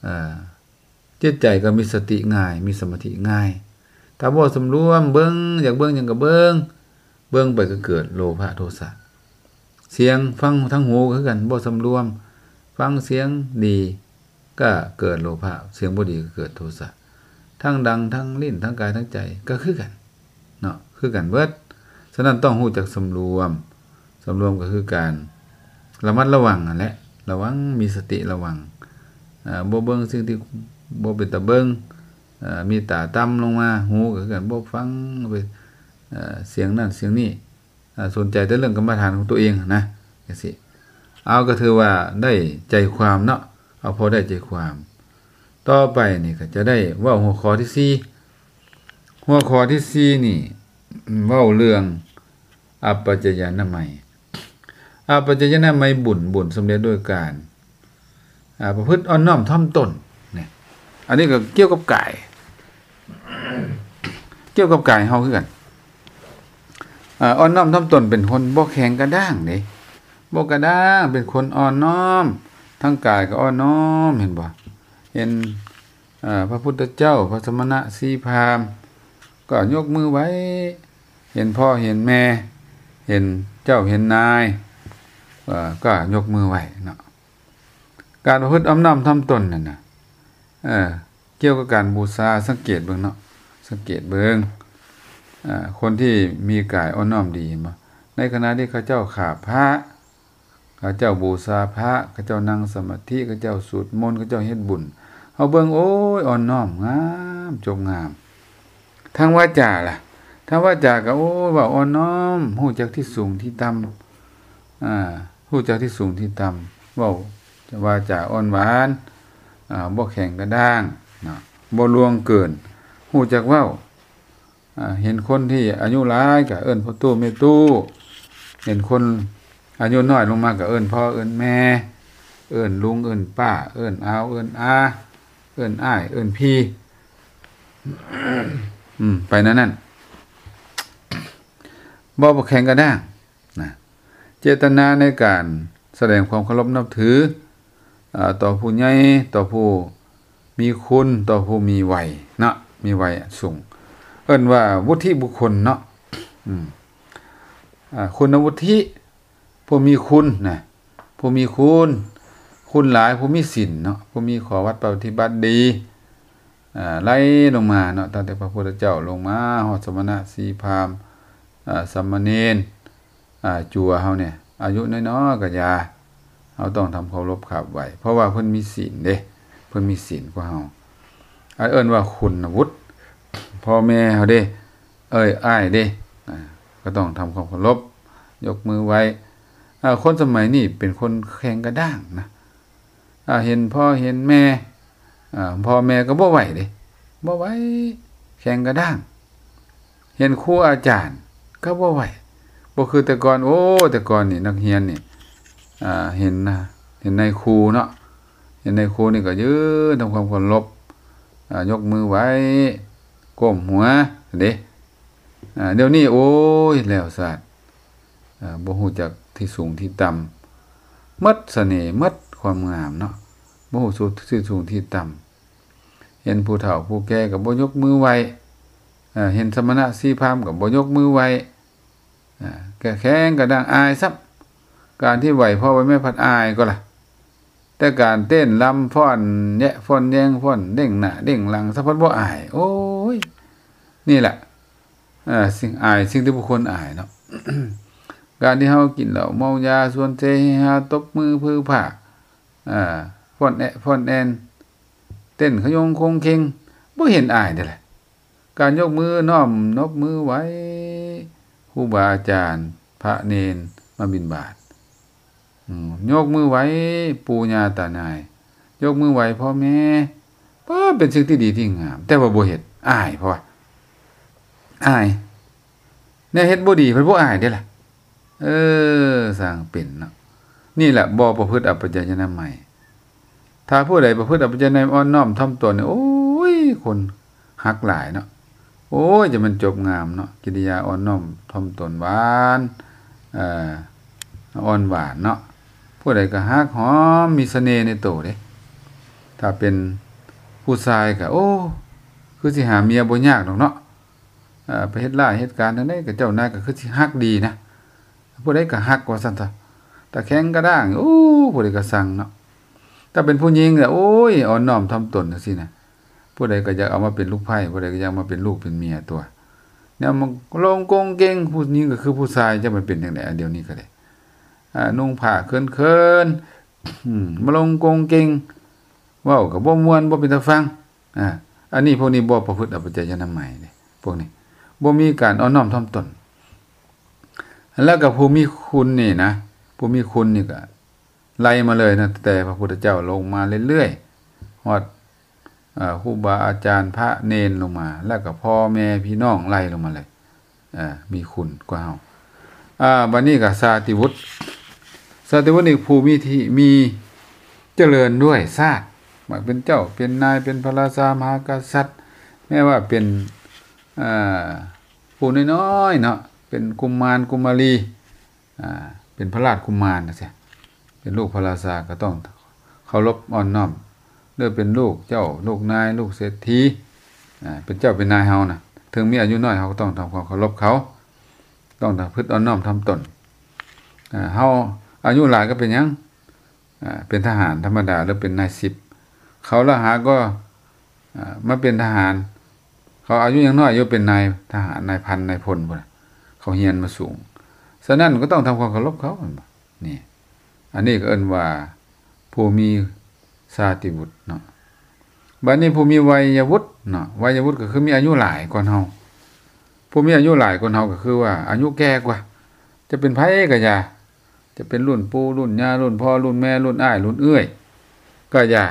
ອາ ຈິດໃຈກໍມີສະຕິງ່າຍ ມີສະມາທິງ່າຍ. ຖ້າບໍ່ສຳລວມ ເບິ່ງ ຢາກເບິ່ງຫຍັງກໍເບິ່ງ ເບິ່ງໄປກໍເກີດໂລພະໂທສະ. ສຽງ ຟັງທາງຫູກໍຄືກັນ ບໍ່ສຳລວມ ຟັງສຽງດີກໍເກີດໂລພະ ສຽງບໍ່ດີກໍເກີດໂທສະ ທັງດັງ ທັງລີ້ນ ທັງກາຍ ທັງໃຈກໍຄືກັນເນາະ ຄືກັນເບິດ. ສະນັ້ນຕ້ອງຮູ້ຈັກສຳລວມ ສຳລວມກໍຄືການລະມັດລະວັງຫັ້ນແຫຼະ ລະວັງ ມີສະຕິລະວັງ ອາ ບໍ່ເບິ່ງສິ່ງທີ່ບໍ່ເປັນຕາເບິ່ງ ອາ ມີຕາຕ່ຳລົງມາ ຫູກໍຄືກັນ ບໍ່ຟັງ ອາ ສຽງນັ້ນສຽງນີ້ ອາ ສົນໃຈແຕ່ເລື່ອງກຳມະຖານຂອງຕົວເອງຫັ້ນນະ ຈັ່ງຊີ້. ເອົາ ກໍຖືວ່າໄດ້ໃຈຄວາມເນາະ ເອົາພໍໄດ້ໃຈຄວາມ. ຕໍ່ໄປນີ້ກໍຈະໄດ້ເວົ້າຫົວຂໍ້ທີສີ່ ຫົວຂໍ້ທີສີ່ນີ້ເວົ້າເລື່ອງ ອັບປະຈະຍານະໄມ ອັບປະຈະຍານະໄມບຸນ ບຸນສຳເລັດດ້ວຍການ ອາ ປະພຶດອ່ອນນ້ອມຖ່ອມຕົນ ນີ້ ອັນນີ້ກໍກ່ຽວກັບກາຍ ກ່ຽວກັບກາຍເຮົາຄືກັນ. ອາ ອ່ອນນ້ອມຖ່ອມຕົນເປັນຄົນບໍ່ແຂງກະດ້າງເດ້ ບໍ່ກະດ້າງ ເປັນຄົນອ່ອນນ້ອມ ທາງກາຍກໍອ່ອນນ້ອມ ເຫັນບໍ່? ເຫັນ ເອີ ພະພຸດທະເຈົ້າ ພະສະມະນະ ຊີພາມ ກໍຍົກມືໄຫວ້ ເຫັນພໍ່ເຫັນແມ່ ເຫັນເຈົ້າເຫັນນາຍ ເອີ ກໍຍົກມືໄຫວ້ເນາະ. ການປະພຶດອ່ອນນ້ອມຖ່ອມຕົນນັ້ນນະ ເອີ ກ່ຽວກັບການບູຊາ ສັງເກດເບິ່ງເນາະ ສັງເກດເບິ່ງ ເອີ ຄົນທີ່ມີກາຍອ່ອນນ້ອມດີ ເຫັນບໍ່? ໃນຂະນະທີ່ເຂົາເຈົ້າຂາບພະ ເຂົາເຈົ້າບູຊາພະ ເຂົາເຈົ້ານັ່ງສະມາທິ ເຂົາເຈົ້າສູດມົນ ເຂົາເຈົ້າເຮັດບຸນ ເຮົາເບິ່ງ ໂອ້ຍ ອ່ອນນ້ອມ ງາມ ຈົບງາມ. ທາງວາຈາລະ? ທາງວາຈາກໍ ໂອ້ຍ ເວົ້າອ່ອນນ້ອມ, ຮູ້ຈັກທີ່ສູງທີ່ຕ່ຳ, ອາ, ຮູ້ຈັກທີ່ສູງທີ່ຕ່ຳ, ເວົ້າວາຈາອ່ອນຫວານ, ອາ, ບໍ່ແຂງກະດ້າງເນາະ, ບໍ່ລ່ວງເກີນ, ຮູ້ຈັກເວົ້າ. ອາ, ເຫັນຄົນທີ່ອາຍຸຫຼາຍກໍເອີ້ນພໍ່ຕູ້ແມ່ຕູ້, ເຫັນຄົນອາຍຸນ້ອຍລົງມາກໍເອີ້ນພໍ່ເອີ້ນແມ່, ເອີ້ນລຸງເອີ້ນປ້າ, ເອີ້ນອາວເອີ້ນອາ, ເອີ້ນອ້າຍເອີ້ນພີ່, ອືມ, ໄປແນວນັ້ນ. ບໍ່ແຂງກະດ້າງນະ, ເຈດຕະນາໃນການສະແດງຄວາມເຄົາລົບນັບຖື ອາ, ຕໍ່ຜູ້ໃຫຍ່, ຕໍ່ຜູ້ມີຄຸນ, ຕໍ່ຜູ້ມີໄວເນາະ, ມີໄວສູງ, ເອີ້ນວ່າວຸດທິບຸກຄົນເນາະ, ອາ, ຄຸນວຸດທິ, ຜູ້ມີຄຸນນະ, ຜູ້ມີຄຸນ, ຄຸນຫຼາຍ, ຜູ້ມີສິນເນາະ, ຜູ້ມີຂໍ້ວັດປະຕິບັດດີ, ອາ, ໄລ່ລົງມາເນາະ, ຕັ້ງແຕ່ພະພຸດທະເຈົ້າລົງມາຮອດສະມະນະ ຊີພາມ, ອາ, ສາມະເນນ, ອາ, ຈົວເຮົານີ້ ອາຍຸນ້ອຍໆກໍຢ່າ, ເຮົາຕ້ອງທຳເຄົາລົບຂາບໄຫວ້, ເພາະວ່າເພິ່ນມີສິນເດ້, ເພິ່ນມີສິນກວ່າເຮົາ. ອັນເອີ້ນວ່າຄຸນນະວຸດ, ພໍ່ແມ່ເຮົາເດ້, ເອີຍ ອ້າຍເດ້, ອາ, ກໍຕ້ອງທຳຄວາມເຄົາລົບ, ຍົກມືໄຫວ້. ອາ, ຄົນສະໄໝນີ້ເປັນຄົນແຂງກະດ້າງນະ. ອາ, ເຫັນພໍ່ເຫັນແມ່, ອາ, ພໍ່ແມ່ກໍບໍ່ໄຫວ້ເດ້, ບໍ່ໄຫວ້, ແຂງກະດ້າງ. ເຫັນຄູອາຈານກໍບໍ່ໄຫວ້, ບໍ່ຄືແຕ່ກ່ອນ. ໂອ້, ແຕ່ກ່ອນນີ້ນັກຮຽນນີ້, ອາ, ເຫັນນະ, ເຫັນນາຍຄູເນາະ, ເຫັນນາຍຄູນີ້ກໍຢືນທຳຄວາມເຄົາລົບ, ອາ, ຍົກມືໄຫວ້, ກົ້ມຫົວເດ້. ອາ, ດຽວນີ້ ໂອ້ຍ ແລ້ວຊາດ, ອາ, ບໍ່ຮູ້ຈັກທີ່ສູງທີ່ຕ່ຳ, ໝົດສະເໜ່, ໝົດຄວາມງາມເນາະ, ບໍ່ຮູ້ສຸດທີ່ສູງທີ່ຕ່ຳ. ເຫັນຜູ້ເຖົ້າຜູ້ແກ່ກໍບໍ່ຍົກມືໄຫວ້, ເຫັນສະມະນະຊີພາມກໍບໍ່ຍົກມືໄຫວ້, ແຂງກະດ້າງ, ອາຍຊ້ຳ. ການທີ່ໄຫວ້ພໍ່ໄຫວ້ແມ່ພັດອາຍກໍລະ, ແຕ່ການເຕັ້ນລຳຟ້ອນແຍະຟ້ອນແຍງ, ຟ້ອນເດ້ງໜ້າເດ້ງຫຼັງ ສະພັດບໍ່ອາຍ. ໂອ້ຍ ນີ້ແຫຼະ, ເອີ, ສິ່ງອາຍ, ສິ່ງທີ່ບໍ່ຄວນອາຍເນາະ. ການທີ່ເຮົາກິນເຫຼົ້າເມົາຢາ, ຊວນເຊເຮຮາ, ຕົບມືຜືຜາ, ອາ, ຟ້ອນແອະຟ້ອນແອນ, ເຕັ້ນຂະຍົງຄົງເຄັງ, ບໍ່ເຫັນອາຍເດ້ລະ. ການຍົກມືນ້ອມ, ຍົກມືໄຫວ້ຄູບາອາຈານ, ພະເນນມາບິນບາດ, ອືມ, ຍົກມືໄຫວ້ປູ່ຍ່າຕານາຍ, ຍົກມືໄຫວ້ພໍ່ແມ່, ເອີ, ເປັນສິ່ງທີ່ດີທີ່ງາມ, ແຕ່ວ່າບໍ່ເຮັດ, ອາຍ, ເພາະວ່າອາຍ. ແນວເຮັດບໍ່ດີເພິ່ນບໍ່ອາຍເດ້ລະ. ເອີ, ຊ່າງເປັນເນາະ. ນີ້ແຫຼະ ບໍ່ປະພຶດອັບປະຈາຍອະນາໄມ. ຖ້າຜູ້ໃດປະພຶດອັບປະຈາຍອະນາໄມ, ອ່ອນນ້ອມຖ່ອມຕົນນີ້, ໂອ້ຍ, ຄົນຮັກຫຼາຍເນາະ. ໂອ້ຍ, ຈະແມ່ນຈົບງາມເນາະ. ກິລິຍາອ່ອນນ້ອມຖ່ອມຕົນ, ຫວານ, ເອີ, ອ່ອນຫວານເນາະ. ຜູ້ໃດກໍຮັກຫອມ, ມີສະເໜ່ໃນໂຕເດ້. ຖ້າເປັນຜູ້ຊາຍກໍ, ໂອ້, ຄືຊິຫາເມຍບໍ່ຍາກດອກເນາະ. ເອີ, ໄປເຮັດລາຍເຮັດການທາງໃດກໍເຈົ້ານາຍກໍຄືຊິຮັກດີນະ, ຜູ້ໃດກໍຮັກວ່າຊັ້ນຊະ. ຖ້າແຂງກະດ້າງ, ໂອ້, ຜູ້ໃດກໍຊັງເນາະ. ຖ້າເປັນຜູ້ຍິງລະ, ໂອ້ຍ, ອ່ອນນ້ອມຖ່ອມຕົນຈັ່ງຊີ້ນະ, ຜູ້ໃດກໍຢາກເອົາມາເປັນລູກໃພ້, ຜູ້ໃດກໍຢາກມາເປັນລູກເປັນເມຍຕົວະ. ແນວມາລົງກົງເກັງ, ຜູ້ຍິງກໍຄືຜູ້ຊາຍ, ຈະມາເປັນຈັ່ງໃດ? ດຽວນີ້ກໍໄດ້, ອາ, ນຸ່ງຜ້າເຂີນໆ, ອືມ, ມາລົງກົງເກັງ, ເວົ້າກໍບໍ່ມ່ວນ, ບໍ່ເປັນຕາຟັງ. ອາ, ອັນນີ້, ພວກນີ້ບໍ່ປະພຶດອັບປະຈາຍອະນາໄມເດ້, ພວກນີ້ບໍ່ມີການອ່ອນນ້ອມຖ່ອມຕົນ. ແລ້ວກໍຜູ້ມີຄຸນນີ້ນະ, ຜູ້ມີຄຸນນີ້ກໍໄລ່ມາເລີຍນະ, ແຕ່ພະພຸດທະເຈົ້າລົງມາເລື້ອຍໆ, ຮອດ, ເອີ, ຄູບາອາຈານ, ພະເນນລົງມາ, ແລ້ວກໍພໍ່ແມ່ພີ່ນ້ອງໄລ່ລົງມາເລີຍ. ເອີ, ມີຄຸນກວ່າເຮົາ. ອາ, ບັດນີ້ກໍສາຕິວຸດ. ສາຕິວຸດນີ້ຜູ້ມີທີ່, ມີຈະເລີນດ້ວຍຊາດ, ມາເປັນເຈົ້າເປັນນາຍ, ເປັນພະລາຊາມະຫາກະສັດ, ແມ້ວ່າເປັນ, ອາ, ຜູ້ນ້ອຍໆເນາະ, ເປັນກຸມານກຸມາລີ, ອາ, ເປັນພະລາດກຸມານຈັ່ງຊີ້, ເປັນລູກພະລາຊາ, ກໍຕ້ອງເຄົາລົບອ່ອນນ້ອມ. ຫຼືເປັນລູກເຈົ້າ, ລູກນາຍ, ລູກເສດຖີ, ອາ, ເປັນເຈົ້າເປັນນາຍເຮົານະ, ເຖິງມີອາຍຸນ້ອຍ ເຮົາກໍຕ້ອງທຳຄວາມເຄົາລົບເຂົາ, ຕ້ອງປະພຶດອ່ອນນ້ອມຖ່ອມຕົນ. ອາ, ເຮົາອາຍຸຫຼາຍກໍເປັນຫຍັງ? ອາ, ເປັນທະຫານທຳມະດາ ຫຼືເປັນນາຍສິບ, ເຂົາລະຫາກໍ, ອາ, ມາເປັນທະຫານ, ເຂົາອາຍຸຍັງນ້ອຍຢູ່ ເປັນນາຍທະຫານ, ນາຍພັນ, ນາຍພົນພຸ້ນນະ, ເຂົາຮຽນມາສູງ. ສະນັ້ນກໍຕ້ອງທຳຄວາມເຄົາລົບເຂົາ, ແມ່ນບໍ່? ນີ້, ອັນນີ້ກໍເອີ້ນວ່າ ຜູ້ມີຊາຕິວຸດເນາະ. ບາດນີ້ຜູ້ມີໄວຍະວຸດເນາະ, ໄວຍະວຸດກໍຄືມີອາຍຸຫຼາຍກ່ອນເຮົາ. ຜູ້ມີອາຍຸຫຼາຍກວ່າເຮົາກໍຄືວ່າອາຍຸແກ່ກວ່າ ຈະເປັນໃຜກໍຢ່າ ຈະເປັນລຸ້ນປູ່ລຸ້ນຍ່າລຸ້ນພໍ່ລຸ້ນແມ່ລຸ້ນອ້າຍລຸ້ນເອື້ອຍກໍຢ່າ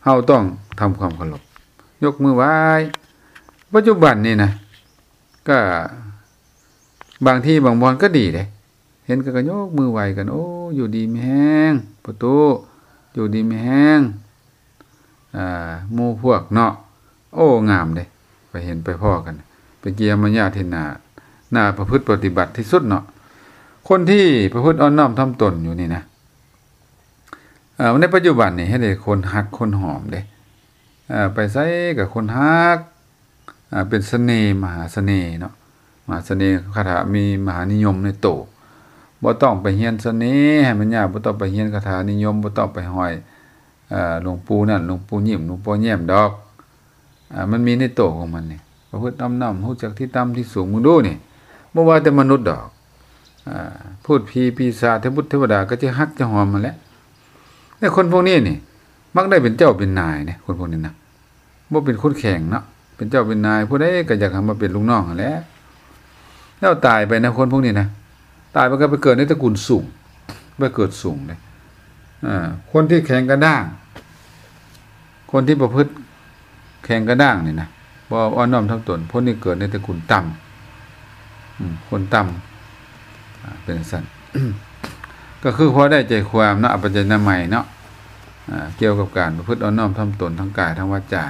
ເຮົາຕ້ອງທຳຄວາມເຄົາລົບ ຍົກມືໄຫວ້. ປັດຈຸບັນນີ້ນະ ກໍບາງທີ່ບາງບ່ອນກໍດີເດ້ ເຫັນກໍ ກໍຍົກມືໄຫວ້ກັນ ໂອ້ ຢູ່ດີມີແຮງ ພໍ່ຕູ້ ຢູ່ດີມີແຮງ ອ່າ ໝູ່ພວກເນາະ ໂອ້ ງາມເດ້ ໄປເຫັນໄປພໍ້ກັນ ເປັນກິລິຍາມາຍາດທີ່ໜ້າ ໜ້າປະພຶດປະຕິບັດທີ່ສຸດເນາະ. ຄົນທີ່ປະພຶດອ່ອນນ້ອມຖ່ອມຕົນຢູ່ນີ້ນະ ເອີ ໃນປັດຈຸບັນນີ້ເຮັດໃຫ້ຄົນຮັກຄົນຫອມເດ້ ເອີ ໄປໃສກໍຄົນຮັກ ອ່າ ເປັນສະເໜ່ ມະຫາສະເໜ່ເນາະ ມະຫາສະເໜ່ ຄາຖາມີມະຫານິຍົມໃນໂຕ ບໍ່ຕ້ອງໄປຮຽນສະເໜ່ໃຫ້ມັນຍາກ ບໍ່ຕ້ອງໄປຮຽນຄາຖານິຍົມ ບໍ່ຕ້ອງໄປຫ້ອຍ ເອີ ຫຼວງປູ່ນັ້ນ ຫຼວງປູ່ຍິ້ມ ຫຼວງປໍແຍ້ມດອກ ເອີ ມັນມີໃນໂຕຂອງມັນນີ້ ປະພຶດອ່ອມນ້ອມ ຮູ້ຈັກທີ່ຕ່ຳທີ່ສູງ ເບິ່ງດູນີ້ ບໍ່ວ່າແຕ່ມະນຸດດອກ ອ່າ ພູດຜີປີສາດ ເທວະບຸດເທວະດາກໍຈະຮັກຈະຫອມຫັ້ນແຫຼະ. ແຕ່ຄົນພວກນີ້ນີ້ ມັກໄດ້ເປັນເຈົ້າເປັນນາຍເດ້ ຄົນພວກນີ້ນະ ບໍ່ເປັນຄົນແຂງເນາະ ເປັນເຈົ້າເປັນນາຍ ຜູ້ໃດກໍຢາກໃຫ້ມາເປັນລູກນ້ອງຫັ້ນແຫຼະ. ແລ້ວຕາຍໄປນະ ຄົນພວກນີ້ນະ ຕາຍໄປກໍໄປເກີດໃນຕະກຸນສູງ ໄປເກີດສູງເດ້. ເອີ ຄົນທີ່ແຂງກະດ້າງ ຄົນທີ່ປະພຶດແຂງກະດ້າງນີ້ນະ ບໍ່ອ່ອນນ້ອມຖ່ອມຕົນ ຄົນນີ້ເກີດໃນຕະກຸນຕ່ຳ ອືມ ຄົນຕ່ຳ ອ່າ ເປັນຈັ່ງຊັ້ນ ກໍຄືພໍໄດ້ໃຈຄວາມເນາະ ອາປັນຈະນາໄມເນາະ ອ່າ ກ່ຽວກັບການປະພຶດອ່ອນນ້ອມຖ່ອມຕົນທາງກາຍທາງວາຈາ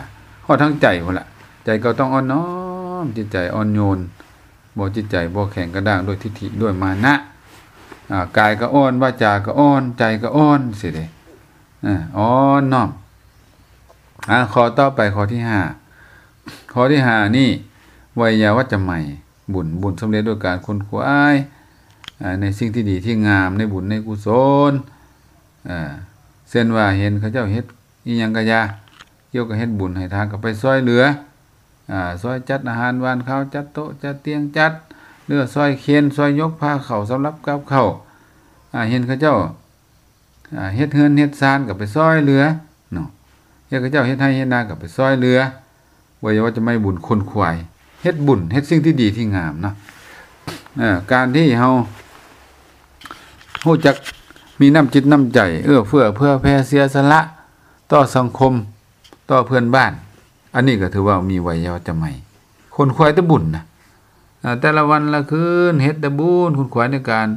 ຮອດທາງໃຈພຸ້ນລະ ໃຈກໍຕ້ອງອ່ອນນ້ອມ ຈິດໃຈອ່ອນໂຍນ ບໍ່ ຈິດໃຈບໍ່ແຂງກະດ້າງດ້ວຍທິດຖິດ້ວຍມານະ ອ່າ ກາຍກໍອ່ອນ ວາຈາກໍອ່ອນ ໃຈກໍອ່ອນຊີ້ເດ້ ອ່ອນນ້ອມ. ອ່າ ຂໍ້ຕໍ່ໄປ ຂໍ້ທີຫ້າ ຂໍ້ທີຫ້ານີ້ ໄວຍາວັດຈະໄມ ບຸນ ບຸນສຳເລັດດ້ວຍການຂົນຂວາຍ ອ່າ ໃນສິ່ງທີ່ດີທີ່ງາມ ໃນບຸນໃນກຸສົນ ເຊັ່ນວ່າເຫັນເຂົາເຈົ້າເຮັດອີ່ຫຍັງກະຢ່າ ກ່ຽວກັບເຮັດບຸນໃຫ້ທານກໍໄປຊ່ອຍເຫຼືອ ອາ ຊ່ອຍຈັດອາຫານຫວານຄາວ ຈັດໂຕະຈັດຕຽງ ຈັດເຫຼືອ ຊ່ອຍເຂັນ ຊ່ອຍຍົກພາເຂົ້າ ສຳລັບກັບເຂົ້າ ອາ ເຫັນເຂົາເຈົ້າ ອາ ເຮັດເຮືອນເຮັດຊານກໍໄປຊ່ອຍເຫຼືອເນາະ ເຫັນເຂົາເຈົ້າເຮັດໄຮ່ເຮັດນາກໍໄປຊ່ອຍເຫຼືອ ໄວຍາວັດຈະໄມ ບຸນຂົນຂວາຍ ເຮັດບຸນ ເຮັດສິ່ງທີ່ດີທີ່ງາມເນາະ ເອີ ການທີ່ເຮົາຮູ້ຈັກມີນ້ຳຈິດນ້ຳໃຈ ເອື້ອເຟື້ອເຜື່ອແຜ່ ເສຍສະຫຼະຕໍ່ສັງຄົມ ຕໍ່ເພື່ອນບ້ານ ອັນນີ້ກໍຖືວ່າມີໄວຍາວັດຈະໄມ ຂົນຂວາຍແຕ່ບຸນນະ ເອີ ແຕ່ລະວັນລະຄືນເຮັດແຕ່ບຸນ ຂົນຂວາຍໃນການ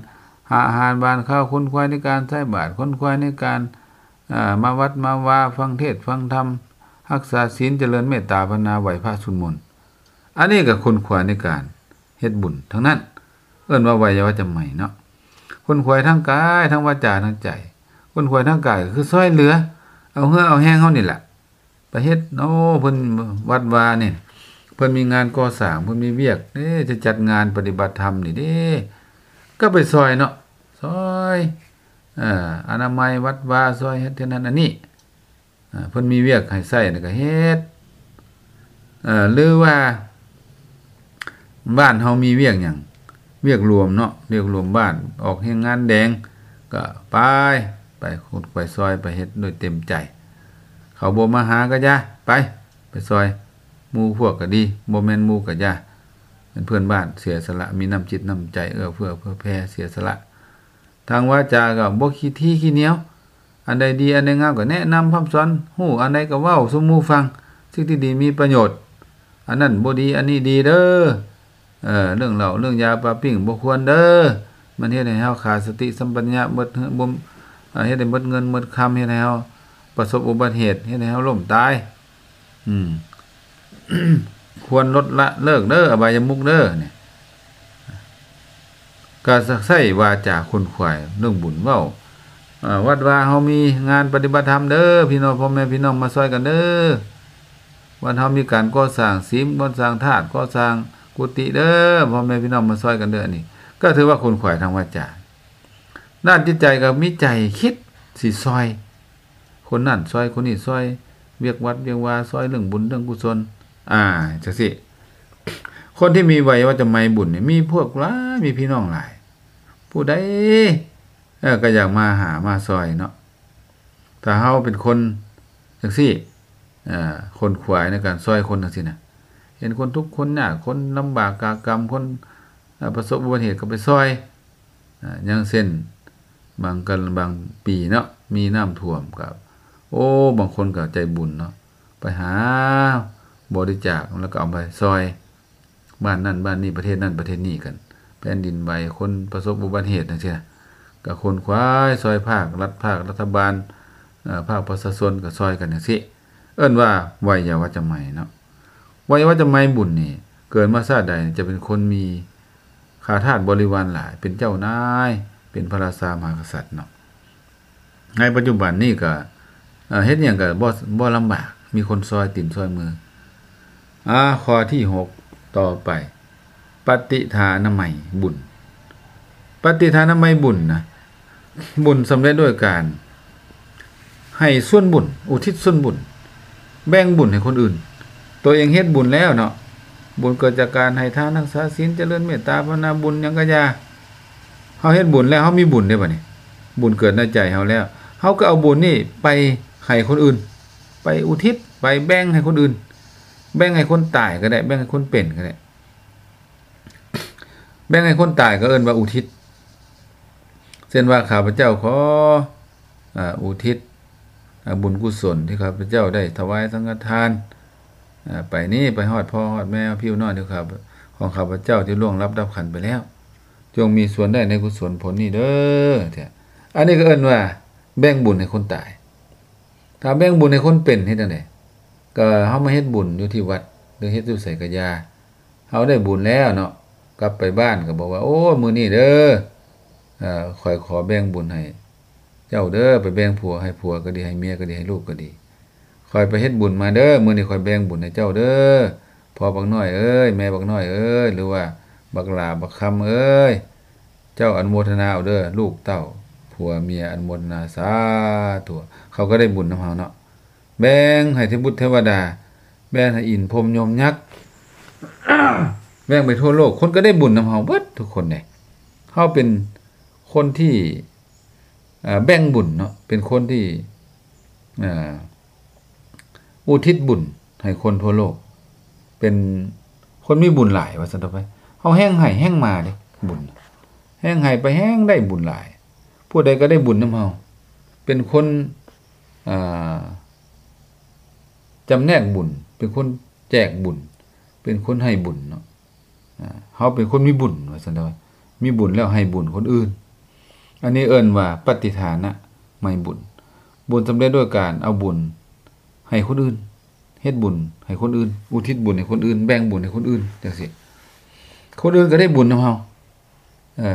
ຫາອາຫານຫວານຄາວ ຂົນຂວາຍໃນການໃສ່ບາດ ຂົນຂວາຍໃນການ ເອີ ມາວັດມາວາ ຟັງເທດຟັງທຳ ຮັກສາສິນ ຈະເລີນເມດຕາພາວະນາ ໄຫວ້ພະສວດມົນ ອັນນີ້ກໍຂົນຂວາຍໃນການເຮັດບຸນທັງນັ້ນ ເອີ້ນວ່າໄວຍາວັດຈະໄມເນາະ ຂົນຂວາຍທາງກາຍ ທາງວາຈາ ທາງໃຈ ຂົນຂວາຍທາງກາຍກໍຄືຊ່ອຍເຫຼືອ ເອົາເຫື່ອເອົາແຮງເຮົານີ້ແຫຼະ ໄປເຮັດ ໂອ້ ເພິ່ນວັດວານີ້ ເພິ່ນມີງານກໍ່ສ້າງ ເພິ່ນມີວຽກເດ້ ຈະຈັດງານປະຕິບັດທຳນີ້ເດ້ ກໍໄປຊ່ອຍເນາະ ຊ່ອຍ ເອີ ອະນາໄມວັດວາ ຊ່ອຍເຮັດເຮັດນັ້ນອັນນີ້ ເອີ ເພິ່ນມີວຽກໃຫ້ໃຊ້ນີ້ກໍເຮັດ ເອີ ຫຼືວ່າ ບ້ານເຮົາມີວຽກຫຍັງ ວຽກລວມເນາະ ວຽກລວມບ້ານ ອອກແຮງງານແດງ ກໍໄປ ໄປຂຸດໄປຊ່ອຍ ໄປເຮັດດ້ວຍເຕັມໃຈ ເຂົາບໍ່ມາຫາກໍຢ່າ ໄປ ໄປຊ່ອຍ ໝູ່ພວກກໍດີ ບໍ່ແມ່ນໝູ່ກໍຢ່າ ເປັນເພື່ອນບ້ານ ເສຍສະຫຼະ ມີນ້ຳຈິດນ້ຳໃຈ ເອື້ອເຟື້ອເຜື່ອແຜ່ ເສຍສະຫຼະ ທາງວາจาก็ບໍ່ຂີ້ຖີ່ຂີ້ໜຽວ ອັນໃດດີອັນໃດງາມກໍແນະນຳພຳສອນ ຮູ້ອັນໃດກໍເວົ້າສູ່ໝູ່ຟັງ ສິ່ງທີ່ດີມີປະໂຫຍດ ອັນນັ້ນບໍ່ດີ ອັນນີ້ດີເດີ ເອີ ເລື່ອງເຫຼົ້າເລື່ອງຢາປາປີ້ງບໍ່ຄວນເດີ ມັນເຮັດໃຫ້ເຮົາຂາດສະຕິສຳປັນຍະ ເບິດເຮືອນ ເຮັດໃຫ້ເບິດເງິນເບິດຄຳ ເຮັດໃຫ້ເຮົາປະສົບອຸບັດເຫດ ເຮັດໃຫ້ເຮົາລົ້ມຕາຍ ອືມ ຄວນລົດລະເລີກເດີ ອະບາຍະມຸກເດີ ນີ້ ກະໃຊ້ວາຈາຂົນຂວາຍເລື່ອງບຸນ ເວົ້າ ເອີ ວັດວາເຮົາມີງານປະຕິບັດທຳເດີ ພີ່ນ້ອງ ພໍ່ແມ່ພີ່ນ້ອງມາຊ່ອຍກັນເດີ ວັດເຮົາມີການກໍ່ສ້າງສິມ ກໍ່ສ້າງທາດ ກໍ່ສ້າງກຸຕິເດີ ພໍ່ແມ່ພີ່ນ້ອງມາຊ່ອຍກັນເດີ ອັນນີ້ກໍຖືວ່າຂົນຂວາຍທາງວາຈາ ດ້ານຈິດໃຈກໍມີໃຈຄິດຊິຊ່ອຍ ຄົນນັ້ນຊ່ອຍຄົນນີ້ ຊ່ອຍວຽກວັດວຽກວາ ຊ່ອຍເລື່ອງບຸນເລື່ອງກຸສົນ ອ່າ ຈັ່ງຊີ້ ຄົນທີ່ມີໄວຍາວັດຈະໄມບຸນນີ້ ມີພວກຫຼາຍ ມີພີ່ນ້ອງຫຼາຍ ຜູ້ໃດ ເອີ ກໍຢາກມາຫາມາຊ່ອຍເນາະ ຖ້າເຮົາເປັນຄົນຈັ່ງຊີ້ ເອີ ຂົນຂວາຍໃນການຊ່ອຍຄົນຈັ່ງຊີ້ນະ ເຫັນຄົນທຸກຄົນຍາກ ຄົນລຳບາກກາກຳ ຄົນ ເອີ ປະສົບອຸບັດຕິເຫດກໍໄປຊ່ອຍ ອາ ຢ່າງເຊັ່ນ ບາງກັນ ບາງປີເນາະ ມີນ້ຳຖ້ວມກໍ ໂອ້ ບາງຄົນກໍໃຈບຸນເນາະ ໄປຫາບໍລິຈາກ ແລ້ວກໍເອົາໄປຊ່ອຍ ບ້ານນັ້ນບ້ານນີ້ ປະເທດນັ້ນປະເທດນີ້ກັນ ແຜ່ນດິນໄຫວ ຄົນປະສົບອຸບັດຕິເຫດຈັ່ງຊີ້ນະ ກໍຂົນຂວາຍຊ່ອຍພາກລັດ ພາກລັດຖະບານ ເອີ ພາກປະຊາຊົນກໍຊ່ອຍກັນຈັ່ງຊີ້ ເອີ້ນວ່າໄວຍາວັດຈະໄມເນາະ. ໄວຍາວັດຈະໄມບຸນນີ້ ເກີດມາຊາດໃດຈະເປັນຄົນມີຂ້າທາດບໍລິວານຫຼາຍ ເປັນເຈົ້ານາຍ ເປັນພະລາຊາມະຫາກະສັດເນາະ. ໃນປັດຈຸບັນນີ້ກໍ ເອີ ເຮັດຫຍັງກໍບໍ່ ບໍ່ລຳບາກ ມີຄົນຊ່ອຍຕີນຊ່ອຍມື. ອາ ຂໍ້ທີຫົກ ຕໍ່ໄປ ປະຕິທານາໄມບຸນ. ປະຕິທານາໄມບຸນນະ ບຸນສຳເລັດດ້ວຍການໃຫ້ສ່ວນບຸນ ອຸທິດສ່ວນບຸນ ແບ່ງບຸນໃຫ້ຄົນອື່ນ. ຕົວເອງເຮັດບຸນແລ້ວເນາະ ບຸນເກີດຈາກການໃຫ້ທານ ຮັກສາສິນ ຈະເລີນເມດຕາ ພາວະນາ ບຸນຫຍັງກະຢ່າ ເຮົາເຮັດບຸນແລ້ວ ເຮົາມີບຸນເດ້ບັດນີ້ ບຸນເກີດໃນໃຈເຮົາແລ້ວ ເຮົາກໍເອົາບຸນນີ້ໄປໃຫ້ຄົນອື່ນ ໄປອຸທິດ ໄປແບ່ງໃຫ້ຄົນອື່ນ ແບ່ງໃຫ້ຄົນຕາຍກໍໄດ້ ແບ່ງໃຫ້ຄົນເປັນກໍໄດ້ ແບ່ງໃຫ້ຄົນຕາຍກໍເອີ້ນວ່າອຸທິດ ເຊັ່ນວ່າ ຂ້າພະເຈົ້າຂໍ ອາ ອຸທິດ ອາ ບຸນກຸສົນທີ່ຂ້າພະເຈົ້າໄດ້ຖວາຍສັງຄະທານ ອາ ໄປນີ້ ໄປຮອດພໍ່ຮອດແມ່ ພີ່ນ້ອງທີ່ຂ້າ ຂອງຂ້າພະເຈົ້າທີ່ລ່ວງລັບດັບຂັນໄປແລ້ວ ຈົ່ງມີສ່ວນໄດ້ໃນກຸສົນຜົນນີ້ເດີ. ອັນນີ້ກໍເອີ້ນວ່າແບ່ງບຸນໃຫ້ຄົນຕາຍ. ຖ້າແບ່ງບຸນໃຫ້ຄົນເປັນເຮັດຈັ່ງໃດ? ກໍເຮົາມາເຮັດບຸນຢູ່ທີ່ວັດ ຫຼືເຮັດຢູ່ໃສກໍຢ່າ ເຮົາໄດ້ບຸນແລ້ວເນາະ ກັບໄປບ້ານກໍບອກວ່າ ໂອ້ ມື້ນີ້ເດີ ເອີ ຂ້ອຍຂໍແບ່ງບຸນໃຫ້ເຈົ້າເດີ ໄປແບ່ງຜົວໃຫ້ຜົວກໍດີ ໃຫ້ເມຍກໍດີ ໃຫ້ລູກກໍດີ ຂ້ອຍໄປເຮັດບຸນມາເດີ ມື້ນີ້ຂ້ອຍແບ່ງບຸນໃຫ້ເຈົ້າເດີ ພໍ່ບັກນ້ອຍເອີຍ ແມ່ບັກນ້ອຍເອີຍ ຫຼືວ່າບັກຫຼ້າບັກຄຳເອີຍ ເຈົ້າອະນຸໂມທະນາເອົາເດີ ລູກເຕົ້າຜົວເມຍອະນຸໂມທະນາ ສາທຸ ເຂົາກໍໄດ້ບຸນນຳເຮົາເນາະ. ແບ່ງໃຫ້ເທວະບຸດເທວະດາ ແບ່ງໃຫ້ອິນພົມຍົມຍັກ ແບ່ງໄປທົ່ວໂລກ ຄົນກໍໄດ້ບຸນນຳເຮົາເບິດທຸກຄົນເດ້. ເຮົາເປັນຄົນທີ່ ເອີ ແບ່ງບຸນເນາະ ເປັນຄົນທີ່ ເອີ ອຸທິດບຸນໃຫ້ຄົນທົ່ວໂລກ ເປັນຄົນມີບຸນຫຼາຍວ່າຊັ້ນເຖາະໄປ. ເຮົາແຮ່ງໃຫ້ແຮ່ງມາເດ້ບຸນ ແຮ່ງໃຫ້ໄປແຮ່ງໄດ້ບຸນຫຼາຍ ຜູ້ໃດກໍໄດ້ບຸນນຳເຮົາ ເປັນຄົນ ອ່າ ຈຳແນກບຸນ ເປັນຄົນແຈກບຸນ ເປັນຄົນໃຫ້ບຸນເນາະ. ອ່າ ເຮົາເປັນຄົນມີບຸນວ່າຊັ້ນເດາະ ມີບຸນແລ້ວໃຫ້ບຸນຄົນອື່ນ ອັນນີ້ເອີ້ນວ່າປະຕິທານະໄມບຸນ ບຸນສຳເລັດດ້ວຍການເອົາບຸນໃຫ້ຄົນອື່ນ ເຮັດບຸນໃຫ້ຄົນອື່ນ ອຸທິດບຸນໃຫ້ຄົນອື່ນ ແບ່ງບຸນໃຫ້ຄົນອື່ນ ຈັ່ງຊີ້ ຄົນອື່ນກໍໄດ້ບຸນນຳເຮົາ ເອີ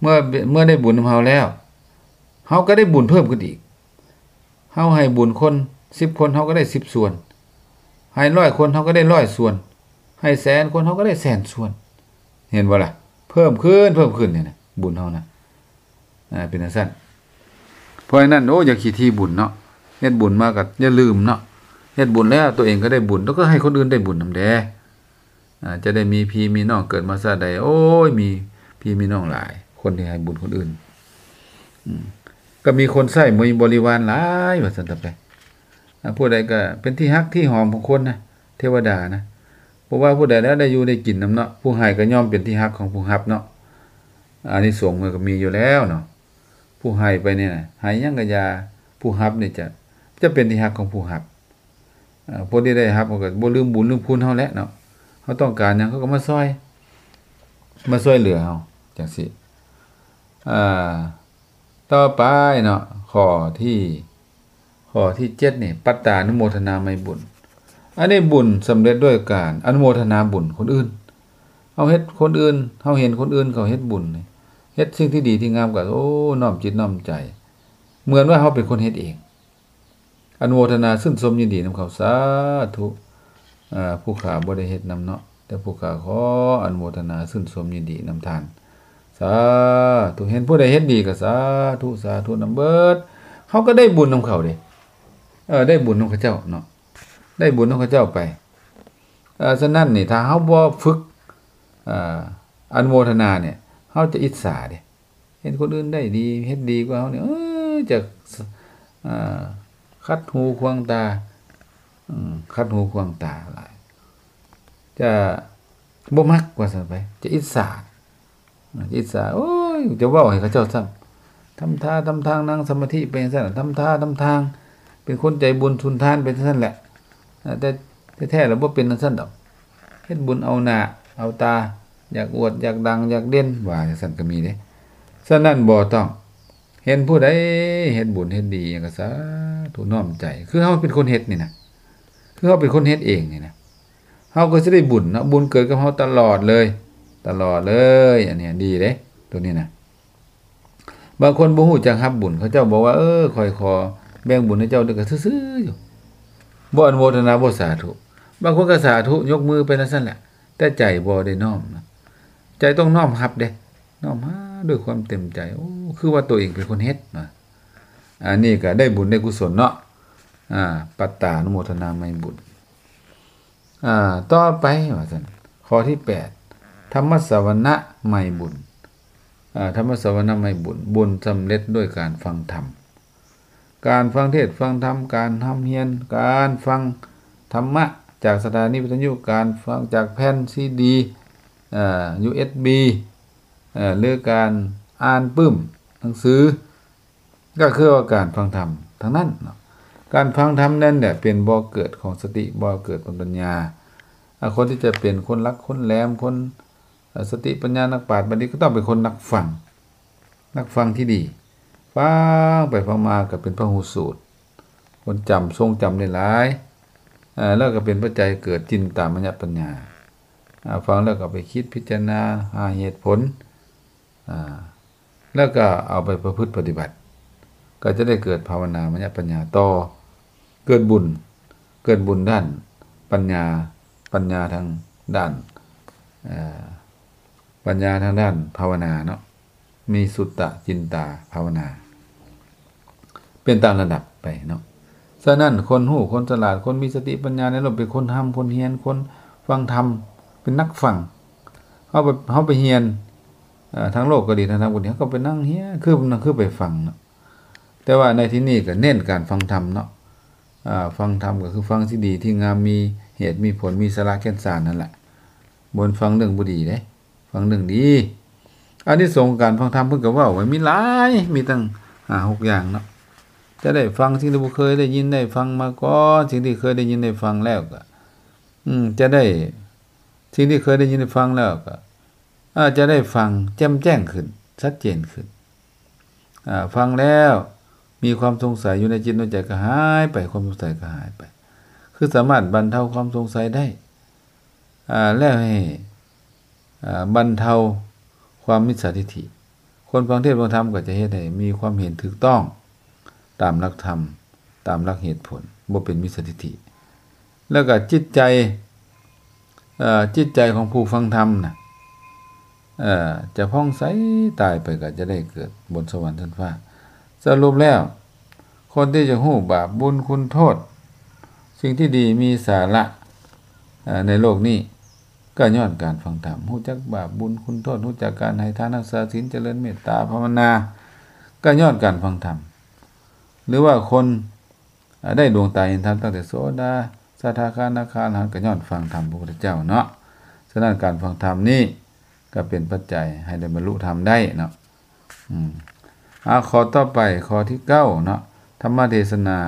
ເມື່ອ ເມື່ອໄດ້ບຸນນຳເຮົາແລ້ວ ເຮົາກໍໄດ້ບຸນເພີ່ມຂຶ້ນອີກ. ເຮົາໃຫ້ບຸນຄົນສິບຄົນ ເຮົາກໍໄດ້ສິບສ່ວນ ໃຫ້ຮ້ອຍຄົນ ເຮົາກໍໄດ້ຮ້ອຍສ່ວນ ໃຫ້ແສນຄົນ ເຮົາກໍໄດ້ແສນສ່ວນ ເຫັນບໍ່ລະ? ເພີ່ມຂຶ້ນ ເພີ່ມຂຶ້ນນີ້ນະ ບຸນເຮົານະ ອ່າ ເປັນຈັ່ງຊັ້ນ. ເພາະສະນັ້ນ ໂອ້ ຢ່າຂີ້ຖີ່ບຸນເນາະ ເຮັດບຸນມາກໍຢ່າລືມເນາະ ເຮັດບຸນແລ້ວຕົວເອງກໍໄດ້ບຸນ ແລ້ວກໍໃຫ້ຄົນອື່ນໄດ້ບຸນນຳແດ່. ອາ ຈະໄດ້ມີພີ່ມີນ້ອງ ເກີດມາຊາດໃດ ໂອ້ຍ ມີພີ່ມີນ້ອງຫຼາຍ ຄົນທີ່ໃຫ້ບຸນຄົນອື່ນ ອືມ ກໍມີຄົນໃຊ້ ມີບໍລິວານຫຼາຍວ່າຊັ້ນເຖາະໄປ. ອາ ຜູ້ໃດກໍເປັນທີ່ຮັກທີ່ຫອມຂອງຄົນນະ ເທວະດານະ ບໍ່ວ່າຜູ້ໃດແລ້ວໄດ້ຢູ່ໄດ້ກິນນຳເນາະ. ຜູ້ໃຫ້ກໍຍ່ອມເປັນທີ່ຮັກຂອງຜູ້ຮັບເນາະ ອານິສົງມັນກໍມີຢູ່ແລ້ວເນາະ. ຜູ້ໃຫ້ໄປນີ້ນະ ໃຫ້ຫຍັງກໍຢ່າ ຜູ້ຮັບນີ້ຈະ ຈະເປັນທີ່ຮັກຂອງຜູ້ຮັບ. ເອີ ຜູ້ທີ່ໄດ້ຮັບເຮົາກໍບໍ່ລືມບຸນລືມຄຸນເຮົາແຫຼະເນາະ ເຮົາຕ້ອງການຫຍັງເຂົາກໍມາຊ່ອຍ ມາຊ່ວຍເຫຼືອເຮົາຈັ່ງຊີ້. ອ່າ ຕໍ່ໄປເນາະ ຂໍ້ທີ ຂໍ້ທີເຈັດນີ້ ປັດຕານຸໂມທະນາໄມບຸນ ອັນນີ້ບຸນສຳເລັດດ້ວຍການອະນຸໂມທະນາບຸນຄົນອື່ນ. ເຮົາເຮັດຄົນອື່ນ ເຮົາເຫັນຄົນອື່ນເຂົາເຮັດບຸນນີ້ ເຮັດສິ່ງທີ່ດີທີ່ງາມກໍ ໂອ້ ນ້ອມຈິດນ້ອມໃຈ ເໝືອນວ່າເຮົາເປັນຄົນເຮັດເອງ. ອະນຸໂມທະນາຊື່ນຊົມຍິນດີນຳເຂົາ ສາທຸ. ເອີ ຜູ້ຂ້າບໍ່ໄດ້ເຮັດນຳເນາະ ແຕ່ຜູ້ຂ້າຂໍອະນຸໂມທະນາຊື່ນຊົມຍິນດີນຳທ່ານ ສາທຸ. ເຫັນຜູ້ໃດເຮັດດີກໍສາທຸ ສາທຸນຳເບິດ. ເຮົາກໍໄດ້ບຸນນຳເຂົາເດ້ ເອີ ໄດ້ບຸນນຳເຂົາເຈົ້າເນາະ ໄດ້ບຸນນຳເຂົາເຈົ້າໄປ. ເອີ ສະນັ້ນນີ້ ຖ້າເຮົາບໍ່ຝຶກ ເອີ ອະນຸໂມທະນານີ້ ເຮົາຈະອິດສາເດ້. ເຫັນຄົນອື່ນໄດ້ດີ ເຮັດດີກວ່າເຮົານີ້ ເອີ ຈະ ເອີ ຂັດຫູຂວາງຕາ ອືມ ຂັດຫູຂວາງຕາຫຼາຍ. ຈະບໍ່ມັກວ່າຊັ້ນໄປ ຈະອິດສາ ຈະອິດສາ ໂອ້ຍ ຈະເວົ້າໃຫ້ເຂົາເຈົ້າຊ້ຳ ທຳທ່າທຳທາງ ນັ່ງສະມາທິໄປຈັ່ງຊັ້ນ ທຳທ່າທຳທາງ ເປັນຄົນໃຈບຸນສຸນທານໄປຈັ່ງຊັ້ນແຫຼະ ແຕ່ແທ້ໆແລ້ວບໍ່ເປັນຈັ່ງຊັ້ນດອກ ເຮັດບຸນເອົາໜ້າເອົາຕາ ຢາກອວດ ຢາກດັງ ຢາກເດັ່ນ ວ່າຈັ່ງຊັ້ນກໍມີເດ້. ສະນັ້ນບໍ່ຕ້ອງ ເຫັນຜູ້ໃດເຮັດບຸນເຮັດດີຫຍັງກໍສາທຸນ້ອມໃຈ ຄືເຮົາເປັນຄົນເຮັດນີ້ນະ ຄືເຮົາເປັນຄົນເຮັດເອງນີ້ນະ ເຮົາກໍຊິໄດ້ບຸນເນາະ ບຸນເກີດກັບເຮົາຕະຫຼອດເລີຍ ຕະຫຼອດເລີຍ ອັນນີ້ດີເດ້ ໂຕນີ້ນະ. ບາງຄົນບໍ່ຮູ້ຈັກຮັບບຸນ ເຂົາເຈົ້າບອກວ່າ ເອີ ຂ້ອຍຂໍແບ່ງບຸນໃຫ້ເຈົ້າ ເດີ ກໍຊື່ໆຢູ່ ບໍ່ອະນຸໂມທະນາ ບໍ່ສາທຸ ບາງຄົນກໍສາທຸ ຍົກມືໄປຈັ່ງຊັ້ນແຫຼະ ແຕ່ໃຈບໍ່ໄດ້ນ້ອມນະ ໃຈຕ້ອງນ້ອມຮັບເດ້ ນ້ອມຮັບດ້ວຍຄວາມເຕັມໃຈ ໂອ້ ຄືວ່າຕົວເອງເປັນຄົນເຮັດນະ ອັນນີ້ກໍໄດ້ບຸນໄດ້ກຸສົນເນາະ ອາ ປັດຕານຸໂມທະນາໄມບຸນ. ອາ ຕໍ່ໄປວ່າຊັ້ນ ຂໍ້ທີແປດ ທຳມະສະວະນະໄມບຸນ ອາ ທຳມະສະວະນະໄມບຸນ ບຸນສຳເລັດດ້ວຍການຟັງທຳ ການຟັງເທດຟັງທຳ ການຮ່ຳຮຽນ ການຟັງທຳມະຈາກສະຖານີວິທະຍຸ ການຟັງຈາກແຜ່ນຊີດີ ເອີ ຢູເອັສບີ ເອີ ຫຼື ການອ່ານປຶ້ມໜັງສື ກໍຄືວ່າການຟັງທຳທັງນັ້ນເນາະ ການຟັງທຳນັ້ນແຫຼະເປັນບໍ່ເກີດຂອງສະຕິ ບໍ່ເກີດຂອງປັນຍາ ອາ ຄົນທີ່ຈະເປັນຄົນຫຼັກຄົນແຫຼມ ຄົນ ເອີ ສະຕິປັນຍາ ນັກປາດບັນດິດ ກໍຕ້ອງເປັນຄົນນັກຟັງ ນັກຟັງທີ່ດີ ຟັງໄປຟັງມາກໍເປັນພະຫູສູດ ຄົນຈຳ ຊົງຈຳໄດ້ຫຼາຍ ເອີ ແລ້ວກໍເປັນປັດໄຈເກີດຈິນຕາມະຍະປັນຍາ ອາ ຟັງແລ້ວກໍເອົາໄປຄິດພິຈາລະນາຫາເຫດຜົນ ອາ ແລ້ວກໍເອົາໄປປະພຶດປະຕິບັດ ກໍຈະໄດ້ເກີດພາວະນາມະຍະປັນຍາຕໍ່ ເກີດບຸນ ເກີດບຸນດ້ານປັນຍາ ປັນຍາທາງດ້ານ ເອີ ປັນຍາທາງດ້ານພາວະນາເນາະ ມີສຸດຕະຈິນຕາພາວະນາ ເປັນຕາມລະດັບໄປເນາະ. ສະນັ້ນ ຄົນຮູ້ ຄົນສະຫຼາດ ຄົນມີສະຕິປັນຍາໃນໂລກ ເປັນຄົນຮ່ຳຄົນຮຽນ ຄົນຟັງທຳ ເປັນນັກຟັງ ເຮົາໄປ ເຮົາໄປຮຽນ ເອີ ທາງໂລກກໍດີ ທາງທຳກໍດີ ເຮົາກໍໄປນັ່ງຮຽນ ຄື ຄືໄປຟັງເນາະ ແຕ່ວ່າໃນທີ່ນີ້ກໍເນັ້ນການຟັງທຳເນາະ ອາ ຟັງທຳກໍຄືຟັງທີ່ດີທີ່ງາມ ມີເຫດມີຜົນ ມີສາລະແກ່ນສານນັ້ນແຫຼະ ບໍ່ແມ່ນຟັງເລື່ອງບໍ່ດີເດ້ ຟັງເລື່ອງດີ. ອານິສົງຂອງການຟັງທຳເພິ່ນກໍເວົ້າໄວ້ມີຫຼາຍ ມີຕັ້ງຫ້າຫົກຢ່າງເນາະ ຈະໄດ້ຟັງສິ່ງທີ່ບໍ່ເຄີຍໄດ້ຍິນໄດ້ຟັງມາກ່ອນ ສິ່ງທີ່ເຄີຍໄດ້ຍິນໄດ້ຟັງແລ້ວກໍ ອືມ ຈະໄດ້ ສິ່ງທີ່ເຄີຍໄດ້ຍິນໄດ້ຟັງແລ້ວກໍ ອາ ຈະໄດ້ຟັງແຈ່ມແຈ້ງຂຶ້ນ ຊັດເຈນຂຶ້ນ ອາ ຟັງແລ້ວມີຄວາມສົງໄສຢູ່ໃນຈິດໃນໃຈກໍຫາຍໄປ ຄວາມສົງໄສກໍຫາຍໄປ ຄືສາມາດບັນເທົາຄວາມສົງໄສໄດ້ ອາ ແລ້ວໃຫ້ ອາ ບັນເທົາຄວາມມິດສາທິດຖິ ຄົນຟັງເທດຟັງທຳກໍຈະເຮັດໃຫ້ມີຄວາມເຫັນຖືກຕ້ອງຕາມຫຼັກທຳ ຕາມຫຼັກເຫດຜົນ ບໍ່ເປັນມິດສາທິດຖິ ແລ້ວກໍຈິດໃຈ ເອີ ຈິດໃຈຂອງຜູ້ຟັງທຳນະ ເອີ ຈະຜ່ອງໃສ ຕາຍໄປກໍຈະໄດ້ເກີດບົນສະຫວັນຊັ້ນຟ້າ. ສະຫຼຸບແລ້ວ ຄົນທີ່ຈະຮູ້ບາບບຸນຄຸນໂທດ ສິ່ງທີ່ດີມີສາລະ ເອີ ໃນໂລກນີ້ ກໍຍ້ອນການຟັງທຳ ຮູ້ຈັກບາບບຸນຄຸນໂທດ ຮູ້ຈັກການໃຫ້ທານ ຮັກສາສິນ ຈະເລີນເມດຕາພາວະນາ ກໍຍ້ອນການຟັງທຳ ຫຼືວ່າຄົນ ອາ ໄດ້ດວງຕາເຫັນທຳຕັ້ງແຕ່ໂສດາ ສະທາຄາ ອະນາຄາ ອະລະຫັນ ກໍຍ້ອນຟັງທຳພະພຸດທະເຈົ້າເນາະ. ສະນັ້ນການຟັງທຳນີ້ກໍເປັນປັດໄຈໃຫ້ໄດ້ບັນລຸທຳໄດ້ເນາະ. ອືມ ອາ ຂໍ້ຕໍ່ໄປ ຂໍ້ທີເກົ້າເນາະ ທຳມະເທສະນາ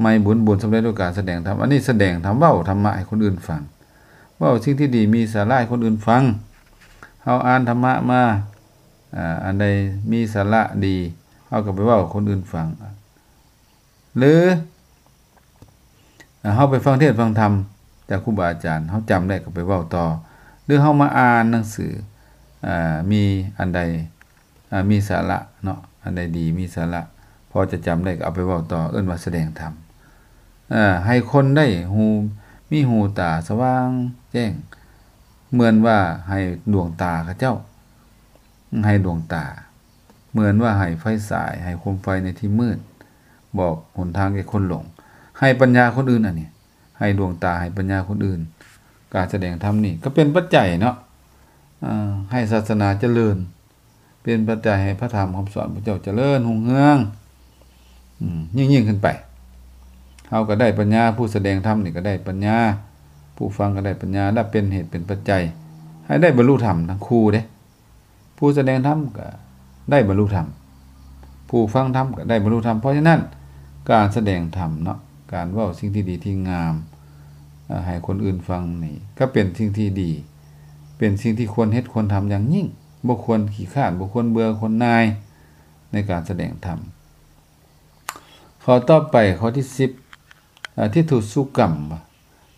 ໄມບຸນ ບຸນສຳເລັດດ້ວຍການສະແດງທຳ ອັນນີ້ສະແດງທຳ ເວົ້າທຳມະໃຫ້ຄົນອື່ນຟັງ ເວົ້າສິ່ງທີ່ດີມີສາລະໃຫ້ຄົນອື່ນຟັງ ເຮົາອ່ານທຳມະມາ ອາ ອັນໃດມີສາລະດີ ເຮົາກໍໄປເວົ້າໃຫ້ຄົນອື່ນຟັງ ຫຼື ເຮົາໄປຟັງເທດຟັງທຳຈາກຄູບາອາຈານ ເຮົາຈຳໄດ້ກໍໄປເວົ້າຕໍ່ ຫຼື ເຮົາມາອ່ານໜັງສື ອາ ມີອັນໃດ ອາ ມີສາລະເນາະ ອັນໃດດີມີສາລະ ພໍຈະຈຳໄດ້ກໍເອົາໄປເວົ້າຕໍ່ ເອີ້ນວ່າສະແດງທຳ ອາ ໃຫ້ຄົນໄດ້ຮູ້ ມີຫູຕາສະຫວ່າງແຈ້ງ ເໝືອນວ່າໃຫ້ດວງຕາເຂົາເຈົ້າ ໃຫ້ດວງຕາ ເໝືອນວ່າໃຫ້ໄຟສາຍ ໃຫ້ໂຄມໄຟໃນທີ່ມືດ ບອກຫົນທາງແກ່ຄົນຫຼົງ ໃຫ້ປັນຍາຄົນອື່ນ ອັນນີ້ ໃຫ້ດວງຕາ ໃຫ້ປັນຍາຄົນອື່ນ ການສະແດງທຳນີ້ກໍເປັນປັດໄຈເນາະ ເອີ ໃຫ້ສາສະໜາຈະເລີນ ເປັນປັດໄຈໃຫ້ພະທຳຄຳສອນພະເຈົ້າຈະເລີນຮຸ່ງເຮືອງ ອືມ ຍິ່ງໆຂຶ້ນໄປ ເຮົາກໍໄດ້ປັນຍາ ຜູ້ສະແດງທຳນີ້ກໍໄດ້ປັນຍາ ຜູ້ ຜູ້ຟັງກໍໄດ້ປັນຍາ ແລະ ເປັນເຫດເປັນປັດໄຈໃຫ້ໄດ້ບັນລຸທຳທັງຄູ່ເດ້. ຜູ້ສະແດງທຳກໍໄດ້ບັນລຸທຳ, ຜູ້ຟັງທຳກໍໄດ້ບັນລຸທຳ. ເພາະສະນັ້ນ ການສະແດງທຳເນາະ, ການເວົ້າສິ່ງທີ່ດີທີ່ງາມ ເອີ່ ໃຫ້ຄົນອື່ນຟັງນີ້ ກໍເປັນສິ່ງທີ່ດີ, ເປັນສິ່ງທີ່ຄວນເຮັດຄວນທຳຢ່າງຍິ່ງ. ບໍ່ຄວນຂີ້ຄ້ານ, ບໍ່ຄວນເບື່ອ, ຄວນໜ່າຍໃນການສະແດງທຳ. ຂໍ້ຕໍ່ໄປ ຂໍ້ທີສິບ ອາ ທິฏທຸສຸກຳ.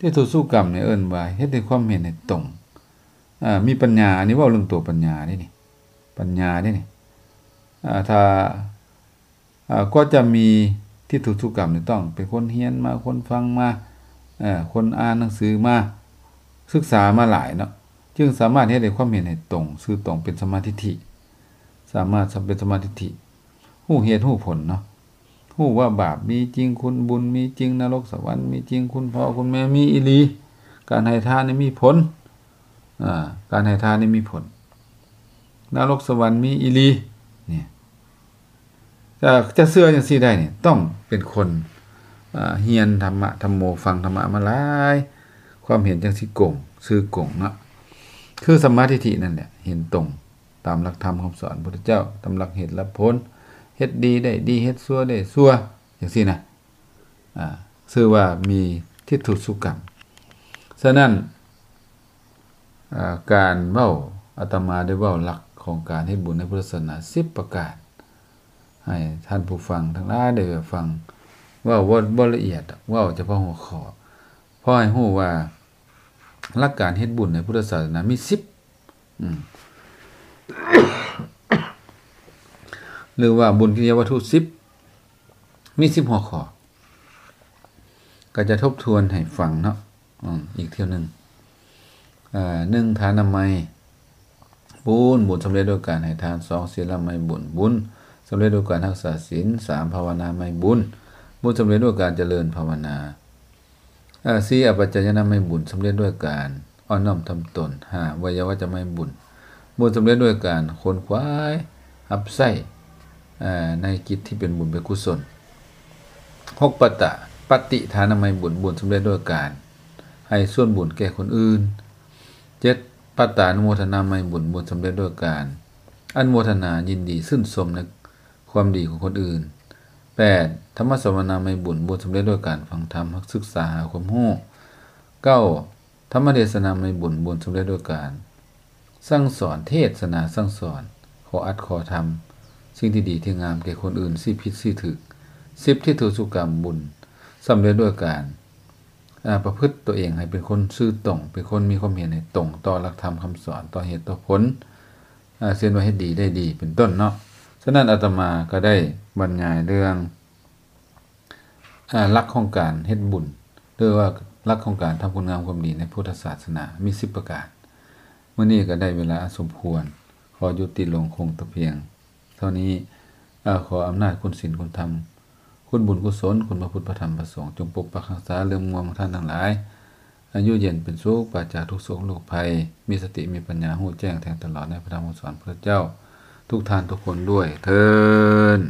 ທິດທຸສຸກຳນີ້ເອີ້ນວ່າເຮັດໃຫ້ຄວາມເຫັນໃຫ້ຕົງ ອາ ມີປັນຍາ. ອັນນີ້ເວົ້າເລື່ອງຕົວປັນຍາເດ້ນີ້ ປັນຍາເດ້ນີ້. ອາ ຖ້າ ອາ ກວ່າຈະມີທິດທຸສຸກຳນີ້ ຕ້ອງເປັນຄົນຮຽນມາ, ຄົນຟັງມາ, ເອີ່ ຄົນອ່ານໜັງສືມາ, ສຶກສາມາຫຼາຍເນາະ, ຈຶ່ງສາມາດເຮັດໃຫ້ຄວາມເຫັນໃຫ້ຕົງ, ຊື່ຕົງ, ເປັນສຳມາທິດຖິ, ສາມາດເປັນສຳມາທິດຖິ, ຮູ້ເຫດຮູ້ຜົນເນາະ, ຮູ້ວ່າບາບມີຈິງ, ຄຸນບຸນມີຈິງ, ນະລົກສະຫວັນມີຈິງ, ຄຸນພໍ່ຄຸນແມ່ມີອີ່ຫຼີ, ການໃຫ້ທານນີ້ມີຜົນ, ອາ ການໃຫ້ທານນີ້ມີຜົນ, ນະລົກສະຫວັນມີອີ່ຫຼີ. ນີ້ ຈະ ຈະເຊື່ອຈັ່ງຊີ້ໄດ້ນີ້ ຕ້ອງເປັນຄົນ ອາ ຮຽນທຳມະທຳໂມ, ຟັງທຳມະມາຫຼາຍ, ຄວາມເຫັນຈັ່ງຊິກົງ, ຊື່ກົງເນາະ, ຄືສຳມາທິດຖິນັ້ນແຫຼະ, ເຫັນຕົງຕາມຫຼັກທຳຄຳສອນພຸດທະເຈົ້າ, ຕາມຫຼັກເຫດຫຼັກຜົນ, ເຮັດດີໄດ້ດີ, ເຮັດຊົ່ວໄດ້ຊົ່ວ, ຈັ່ງຊີ້ນະ. ອາ ຊື່ວ່າມີທິດທຸສຸກຳ. ສະນັ້ນ ອາ ການເວົ້າ, ອາດຕະມາໄດ້ເວົ້າຫຼັກຂອງການເຮັດບຸນໃນພຸດທະສາສະໜາສິບປະການ ໃຫ້ທ່ານຜູ້ຟັງທັງຫຼາຍໄດ້ຟັງ, ເວົ້າບໍ່ ບໍ່ລະອຽດດອກ, ເວົ້າສະເພາະຫົວຂໍ້ ພໍໃຫ້ຮູ້ວ່າຫຼັກການເຮັດບຸນໃນພຸດທະສາສະໜາມີສິບ ອາ ຫຼືວ່າບຸນກິລິຍາວັດຖຸສິບ ມີສິບຫົວຂໍ້. ກໍຈະທົບທວນໃຫ້ຟັງເນາະ ອືມ ອີກເທື່ອໜຶ່ງ. ເອີ່ ໜຶ່ງ ທານະໄມບຸນ, ບຸນສຳເລັດດ້ວຍການໃຫ້ທານ. ສອງ ສີລະໄມບຸນ, ບຸນສຳເລັດດ້ວຍການຮັກສາສິນ. ສາມ ພາວະນາໄມບຸນ, ບຸນສຳເລັດດ້ວຍການຈະເລີນພາວະນາ. ເອີ່ ສີ່ ອະປັດຈາຍະນາໄມບຸນ, ສຳເລັດດ້ວຍການອ່ອນນ້ອມຖ່ອມຕົນ. ຫ້າ ໄວຍາວັດຈະໄມບຸນ, ບຸນສຳເລັດດ້ວຍການຂົນຂວາຍຮັບໃຊ້ ເອີ່ ໃນກິດທີ່ເປັນບຸນເປັນກຸສົນ. ຫົກ ປະຕະ ປະຕິທານະໄມບຸນ, ບຸນສຳເລັດດ້ວຍການໃຫ້ສ່ວນບຸນແກ່ຄົນອື່ນ. ເຈັດ ປະຕານຸໂມທະນາໄມບຸນ, ບຸນສຳເລັດດ້ວຍການອະນຸໂມທະນາຍິນດີຊື່ນຊົມໃນຄວາມດີຂອງຄົນອື່ນ. ແປດ ທຳມະສະວະນາໄມບຸນ, ບຸນສຳເລັດດ້ວຍການຟັງທຳ, ສຶກສາຫາຄວາມຮູ້. ເກົ້າ ທຳມະເທດສະນາໄມບຸນ, ບຸນສຳເລັດດ້ວຍການສັ່ງສອນ, ເທດສະນາສັ່ງສອນ, ຂໍອັດຂໍທຳສິ່ງທີ່ດີທີ່ງາມແກ່ຄົນອື່ນ, ຊີ້ຜິດຊີ້ຖືກ. ສິບ ທິດທຸສຸກຳ, ບຸນສຳເລັດດ້ວຍການ ອາ ປະພຶດຕົວເອງໃຫ້ເປັນຄົນຊື່ຕົງ, ເປັນຄົນມີຄວາມເຫັນໃຫ້ຕົງຕໍ່ຫຼັກທຳຄຳສອນ, ຕໍ່ເຫດຕໍ່ຜົນ, ອາ ເຊັ່ນວ່າເຮັດດີໄດ້ດີ ເປັນຕົ້ນເນາະ. ສະນັ້ນ ອາດຕະມາກໍໄດ້ບັນຍາຍເລື່ອງ ອາ ຫຼັກຂອງການເຮັດບຸນ ຫຼືວ່າຫຼັກຂອງການທຳຄຸນງາມຄວາມດີໃນພຸດທະສາສະໜາມີສິບປະການ. ມື້ນີ້ກໍໄດ້ເວລາອັນສົມຄວນ, ຂໍຍຸຕິລົງຄົງແຕ່ພຽງເທົ່ານີ້. ອາ ຂໍອຳນາດຄຸນສິນຄຸນທຳ, ຄຸນບຸນກຸສົນ, ຄຸນພະພຸດພະທຳພະສົງ ຈົ່ງປົກປັກຮັກສາເລື່ອມງວມຂອງທ່ານທັງຫຼາຍ, ອາຍຸເຢັນເປັນສຸກ, ປາສຈາກທຸກໂສກໂລກໄພ, ມີສະຕິມີປັນຍາ, ຮູ້ແຈ້ງແທງຕະຫຼອດໃນພະທຳຄຳສອນພະເຈົ້າ ທຸກທ່ານທຸກຄົນດ້ວຍເທີ້ນ.